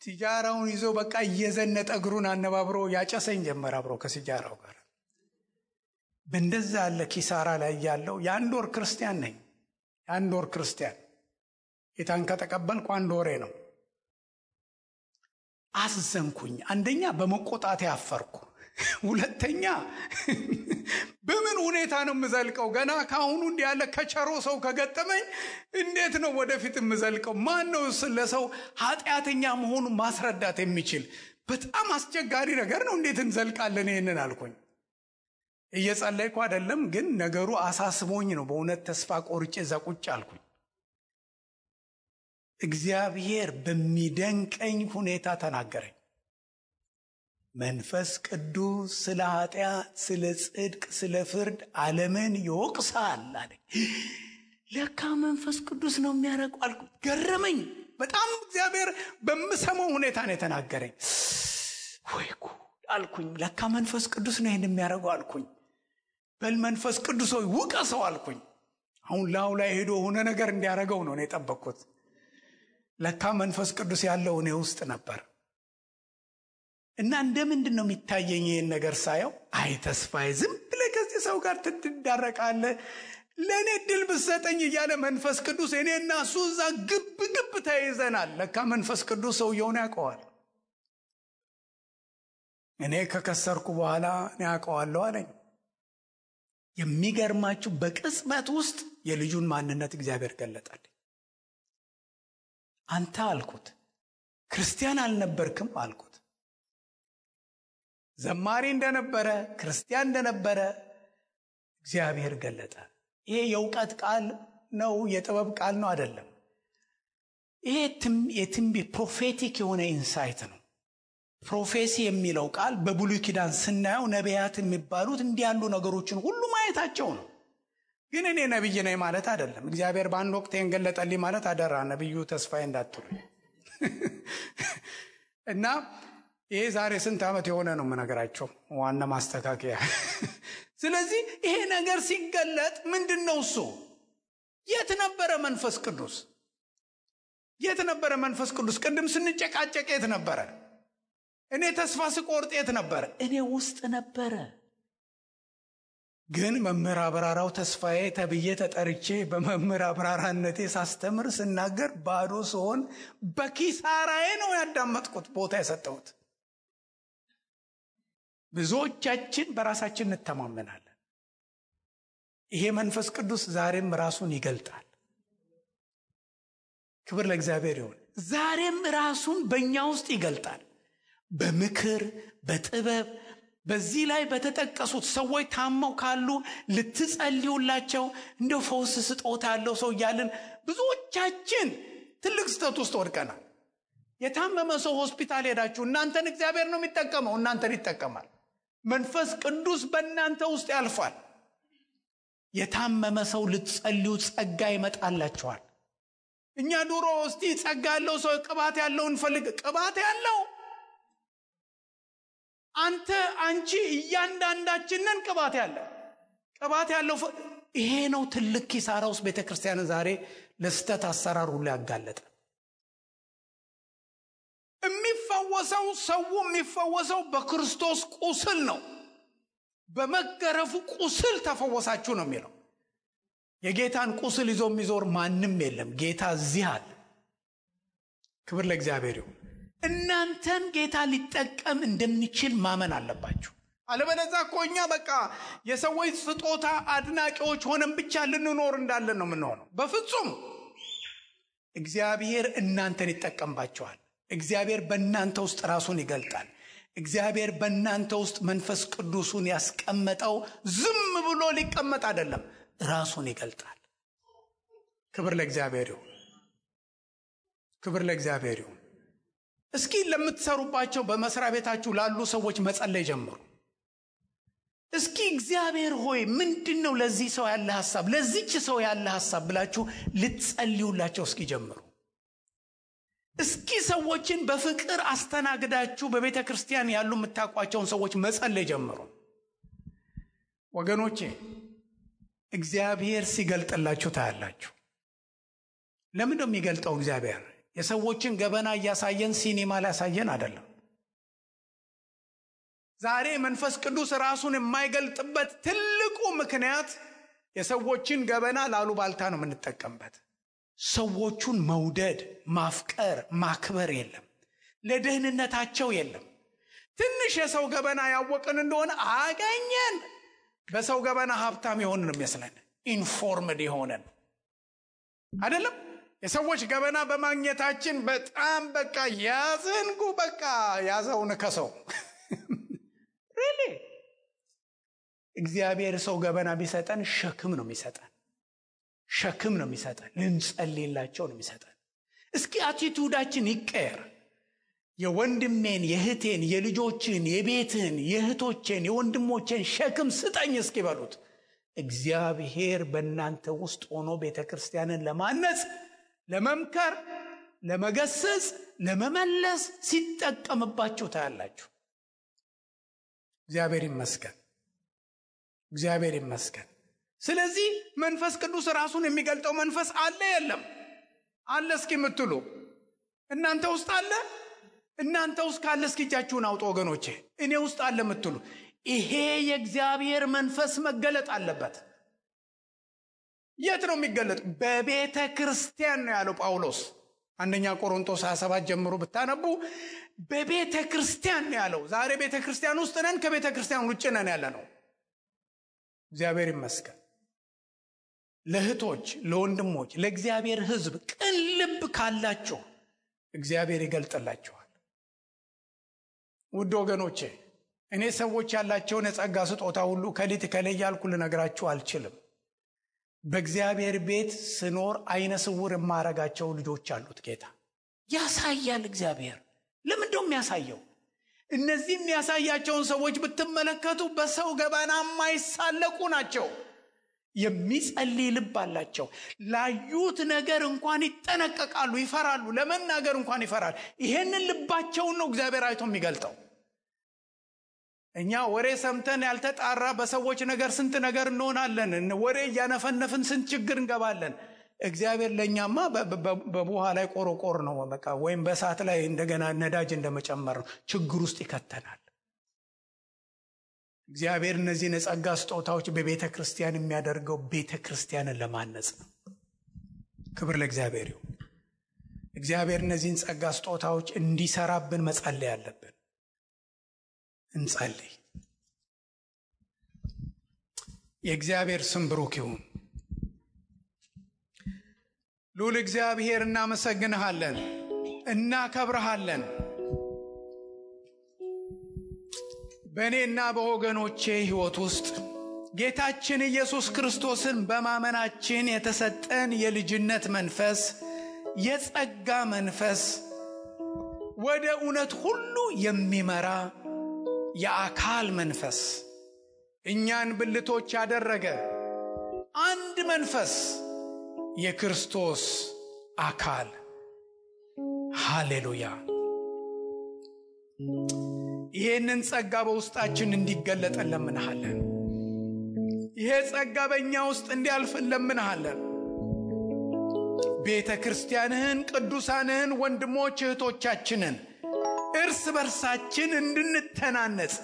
ሲጃራውን ይዞ በቃ እየዘነጠ እግሩን አነባብሮ ያጨሰኝ ጀመር አብሮ ከሲጃራው ጋር። በእንደዛ ያለ ኪሳራ ላይ ያለው የአንድ ወር ክርስቲያን ነኝ። የአንድ ወር ክርስቲያን ጌታን ከተቀበልኩ 1 ወሬ ነው። አስዘንኩኝ። አንደኛ በመቆጣቴ አፈርኩ። ሁለተኛ በምን ሁኔታ ነው የምዘልቀው? ገና ካሁኑ እንዲህ ያለ ከቸሮ ሰው ከገጠመኝ እንዴት ነው ወደፊት የምዘልቀው? ማን ነው ለሰው ኃጢአተኛ መሆኑን ማስረዳት የሚችል? በጣም አስቸጋሪ ነገር ነው። እንዴት እንዘልቃለን ይሄንን አልኩኝ። እየጸለይኩ አይደለም፣ ግን ነገሩ አሳስቦኝ ነው። በእውነት ተስፋ ቆርጬ እዛ ቁጭ አልኩኝ። እግዚአብሔር በሚደንቀኝ ሁኔታ ተናገረኝ። መንፈስ ቅዱስ ስለ ኃጢአት፣ ስለ ጽድቅ፣ ስለ ፍርድ ዓለምን ይወቅሳል አለኝ። ለካ መንፈስ ቅዱስ ነው የሚያደርገው አልኩ። ገረመኝ በጣም። እግዚአብሔር በምሰማው ሁኔታ ነው የተናገረኝ። ወይ ጉድ አልኩኝ። ለካ መንፈስ ቅዱስ ነው ይሄን የሚያደርገው አልኩኝ። በል መንፈስ ቅዱስ ሆይ ውቀሰው አልኩኝ። አሁን ላው ላይ ሄዶ ሆነ ነገር እንዲያደርገው ነው የጠበቅኩት። ለካ መንፈስ ቅዱስ ያለው እኔ ውስጥ ነበር። እና እንደምንድን ነው የሚታየኝ ይሄን ነገር ሳየው? አይ ተስፋዬ፣ ዝም ብለህ ከዚህ ሰው ጋር ትዳረቃለህ፣ ለእኔ ድል ብትሰጠኝ እያለ መንፈስ ቅዱስ እኔና እሱ እዛ ግብ ተይዘናል። ለካ መንፈስ ቅዱስ ሰውየውን ያውቀዋል። እኔ ከከሰርኩ በኋላ እኔ ያውቀዋለሁ አለኝ። የሚገርማችሁ በቅጽበት ውስጥ የልጁን ማንነት እግዚአብሔር ገለጠልኝ። አንተ አልኩት ክርስቲያን አልነበርክም አልኩት። ዘማሪ እንደነበረ ክርስቲያን እንደነበረ እግዚአብሔር ገለጠ። ይሄ የእውቀት ቃል ነው፣ የጥበብ ቃል ነው አይደለም። ይሄ የትንቢት ፕሮፌቲክ የሆነ ኢንሳይት ነው። ፕሮፌሲ የሚለው ቃል በብሉይ ኪዳን ስናየው ነቢያት የሚባሉት እንዲህ ያሉ ነገሮችን ሁሉ ማየታቸው ነው። ግን እኔ ነብይ ነኝ ማለት አይደለም። እግዚአብሔር በአንድ ወቅት የገለጠልኝ ማለት አደራ ነብዩ ተስፋዬ እንዳትሉ። እና ይሄ ዛሬ ስንት ዓመት የሆነ ነው የምነግራቸው፣ ዋና ማስተካከያ። ስለዚህ ይሄ ነገር ሲገለጥ ምንድነው እሱ? የት ነበረ መንፈስ ቅዱስ? የት ነበረ መንፈስ ቅዱስ? ቅድም ስንጨቃጨቅ የት ነበረ? እኔ ተስፋ ስቆርጥ የት ነበረ? እኔ ውስጥ ነበረ። ግን መምህር አብራራው ተስፋዬ ተብዬ ተጠርቼ በመምህር አብራራነቴ ሳስተምር ስናገር ባዶ ስሆን በኪሳራዬ ነው ያዳመጥኩት ቦታ የሰጠሁት። ብዙዎቻችን በራሳችን እንተማመናለን። ይሄ መንፈስ ቅዱስ ዛሬም ራሱን ይገልጣል። ክብር ለእግዚአብሔር ይሁን። ዛሬም ራሱን በእኛ ውስጥ ይገልጣል። በምክር በጥበብ በዚህ ላይ በተጠቀሱት ሰዎች ታመው ካሉ ልትጸልዩላቸው፣ እንደው ፈውስ ስጦታ ያለው ሰው እያልን ብዙዎቻችን ትልቅ ስህተት ውስጥ ወድቀናል። የታመመ ሰው ሆስፒታል ሄዳችሁ እናንተን እግዚአብሔር ነው የሚጠቀመው፣ እናንተን ይጠቀማል። መንፈስ ቅዱስ በእናንተ ውስጥ ያልፋል። የታመመ ሰው ልትጸልዩ ጸጋ ይመጣላችኋል። እኛ ድሮ እስቲ ጸጋ ያለው ሰው ቅባት ያለው እንፈልግ። ቅባት ያለው አንቺ እያንዳንዳችንን ቅባት ያለው ይሄ ነው። ትልቅ ኪሳራ ውስጥ ቤተክርስቲያን ዛሬ ለስተት አሰራር ሁሉ ያጋለጠ። ሰው የሚፈወሰው በክርስቶስ ቁስል ነው። በመገረፉ ቁስል ተፈወሳችሁ ነው የሚለው። የጌታን ቁስል ይዞ የሚዞር ማንም የለም። ጌታ እዚህ አለ። ክብር ለእግዚአብሔር ይሁን። እናንተን ጌታ ሊጠቀም እንደሚችል ማመን አለባችሁ። አለበለዚያ እኮ እኛ በቃ የሰዎች ስጦታ አድናቂዎች ሆነን ብቻ ልንኖር እንዳለን ነው የምንሆነው። በፍጹም እግዚአብሔር እናንተን ይጠቀምባችኋል። እግዚአብሔር በእናንተ ውስጥ ራሱን ይገልጣል። እግዚአብሔር በእናንተ ውስጥ መንፈስ ቅዱሱን ያስቀመጠው ዝም ብሎ ሊቀመጥ አይደለም፣ ራሱን ይገልጣል። ክብር ለእግዚአብሔር ይሁን። ክብር ለእግዚአብሔር ይሁን። እስኪ ለምትሰሩባቸው በመስሪያ ቤታችሁ ላሉ ሰዎች መጸለይ ጀምሩ። እስኪ እግዚአብሔር ሆይ ምንድነው ለዚህ ሰው ያለ ሐሳብ፣ ለዚህች ሰው ያለ ሐሳብ ብላችሁ ልትጸልዩላቸው እስኪ ጀምሩ። እስኪ ሰዎችን በፍቅር አስተናግዳችሁ በቤተ ክርስቲያን ያሉ የምታውቋቸውን ሰዎች መጸለይ ጀምሩ። ወገኖቼ እግዚአብሔር ሲገልጥላችሁ ታያላችሁ። ለምን ነው የሚገልጠው? እግዚአብሔር የሰዎችን ገበና እያሳየን ሲኒማ ላሳየን አይደለም። ዛሬ መንፈስ ቅዱስ ራሱን የማይገልጥበት ትልቁ ምክንያት የሰዎችን ገበና ላሉባልታ ነው የምንጠቀምበት። ሰዎቹን መውደድ፣ ማፍቀር፣ ማክበር የለም። ለደህንነታቸው የለም። ትንሽ የሰው ገበና ያወቅን እንደሆነ አገኘን። በሰው ገበና ሀብታም የሆንን የሚመስለን ኢንፎርምድ የሆነን አይደለም። የሰዎች ገበና በማግኘታችን በጣም በቃ ያዘንጉ በቃ ያዘውን ከሰው ሪሊ እግዚአብሔር ሰው ገበና ቢሰጠን ሸክም ነው የሚሰጠን። ሸክም ነው የሚሰጠን። ልንጸልይላቸው ነው የሚሰጠን። እስኪ አቲቱዳችን ይቀየር። የወንድሜን፣ የእህቴን፣ የልጆችን፣ የቤትን፣ የእህቶችን፣ የወንድሞችን ሸክም ስጠኝ እስኪ በሉት። እግዚአብሔር በእናንተ ውስጥ ሆኖ ቤተክርስቲያንን ለማነጽ፣ ለመምከር፣ ለመገሰጽ፣ ለመመለስ ሲጠቀምባችሁ ታያላችሁ። እግዚአብሔር ይመስገን። እግዚአብሔር ይመስገን። ስለዚህ መንፈስ ቅዱስ ራሱን የሚገልጠው መንፈስ አለ የለም? አለ እስኪ የምትሉ እናንተ ውስጥ አለ? እናንተ ውስጥ ካለ እስኪ እጃችሁን አውጡ ወገኖቼ። እኔ ውስጥ አለ የምትሉ ይሄ የእግዚአብሔር መንፈስ መገለጥ አለበት። የት ነው የሚገለጥ? በቤተ ክርስቲያን ነው ያለው ጳውሎስ። አንደኛ ቆሮንቶስ 27 ጀምሮ ብታነቡ በቤተ ክርስቲያን ነው ያለው። ዛሬ ቤተ ክርስቲያን ውስጥ ነን፣ ከቤተ ክርስቲያን ውጭ ነን ያለ ነው። እግዚአብሔር ይመስገን። ለእህቶች፣ ለወንድሞች፣ ለእግዚአብሔር ሕዝብ ቅን ልብ ካላችሁ እግዚአብሔር ይገልጥላችኋል። ውድ ወገኖቼ እኔ ሰዎች ያላቸውን የጸጋ ስጦታ ሁሉ ከሊት ከለያልኩ ልነግራችሁ አልችልም። በእግዚአብሔር ቤት ስኖር አይነ ስውር የማረጋቸው ልጆች አሉት ጌታ። ያሳያል እግዚአብሔር። ለምንድነው የሚያሳየው? እነዚህ የሚያሳያቸውን ሰዎች ብትመለከቱ በሰው ገበና የማይሳለቁ ናቸው። የሚጸልይ ልብ አላቸው። ላዩት ነገር እንኳን ይጠነቀቃሉ፣ ይፈራሉ። ለመናገር እንኳን ይፈራል። ይሄንን ልባቸውን ነው እግዚአብሔር አይቶ የሚገልጠው። እኛ ወሬ ሰምተን ያልተጣራ በሰዎች ነገር ስንት ነገር እንሆናለን። ወሬ እያነፈነፍን ስንት ችግር እንገባለን። እግዚአብሔር ለኛማ በቡሃ ላይ ቆሮቆር ነው በቃ፣ ወይም በእሳት ላይ እንደገና ነዳጅ እንደመጨመር ነው። ችግር ውስጥ ይከተናል። እግዚአብሔር እነዚህን የጸጋ ስጦታዎች በቤተ ክርስቲያን የሚያደርገው ቤተ ክርስቲያንን ለማነጽ ነው። ክብር ለእግዚአብሔር ይሁን። እግዚአብሔር እነዚህን ጸጋ ስጦታዎች እንዲሰራብን መጸለይ አለብን። እንጸልይ። የእግዚአብሔር ስም ብሩክ ይሁን። ልዑል እግዚአብሔር እናመሰግንሃለን፣ እናከብረሃለን። በእኔና በወገኖቼ ሕይወት ውስጥ ጌታችን ኢየሱስ ክርስቶስን በማመናችን የተሰጠን የልጅነት መንፈስ፣ የጸጋ መንፈስ፣ ወደ እውነት ሁሉ የሚመራ የአካል መንፈስ፣ እኛን ብልቶች ያደረገ አንድ መንፈስ፣ የክርስቶስ አካል። ሃሌሉያ። ይህንን ጸጋ በውስጣችን እንዲገለጥ እንለምንሃለን። ይሄ ጸጋ በእኛ ውስጥ እንዲያልፍ እንለምንሃለን። ቤተ ክርስቲያንህን፣ ቅዱሳንህን፣ ወንድሞች እህቶቻችንን እርስ በርሳችን እንድንተናነጽ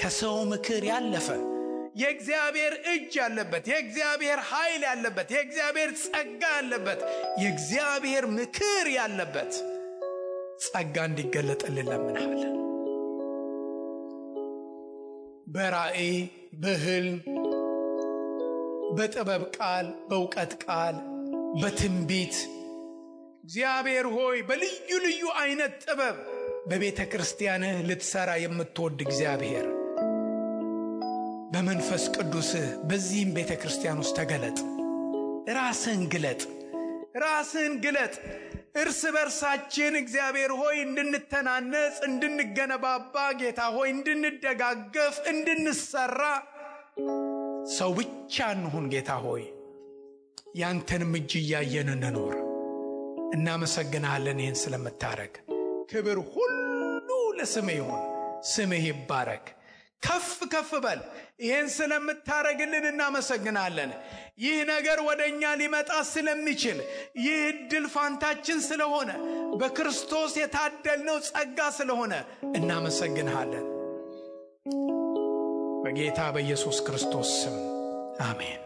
ከሰው ምክር ያለፈ የእግዚአብሔር እጅ ያለበት፣ የእግዚአብሔር ኃይል ያለበት፣ የእግዚአብሔር ጸጋ ያለበት፣ የእግዚአብሔር ምክር ያለበት ጸጋ እንዲገለጥልን እንለምንሃለን። በራእይ፣ በሕልም፣ በጥበብ ቃል፣ በእውቀት ቃል፣ በትንቢት እግዚአብሔር ሆይ በልዩ ልዩ አይነት ጥበብ በቤተ ክርስቲያንህ ልትሰራ የምትወድ እግዚአብሔር በመንፈስ ቅዱስህ በዚህም ቤተ ክርስቲያን ውስጥ ተገለጥ። ራስህን ግለጥ። እርስ በርሳችን እግዚአብሔር ሆይ እንድንተናነጽ፣ እንድንገነባባ፣ ጌታ ሆይ እንድንደጋገፍ፣ እንድንሰራ ሰው ብቻ እንሁን። ጌታ ሆይ ያንተንም እጅ እያየን እንኖር። እናመሰግናለን ይህን ስለምታረግ። ክብር ሁሉ ለስምህ ይሁን። ስምህ ይባረክ። ከፍ ከፍ በል። ይህን ስለምታረግልን እናመሰግናለን። ይህ ነገር ወደኛ ሊመጣ ስለሚችል፣ ይህ ዕድል ፋንታችን ስለሆነ፣ በክርስቶስ የታደልነው ጸጋ ስለሆነ እናመሰግንሃለን። በጌታ በኢየሱስ ክርስቶስ ስም አሜን።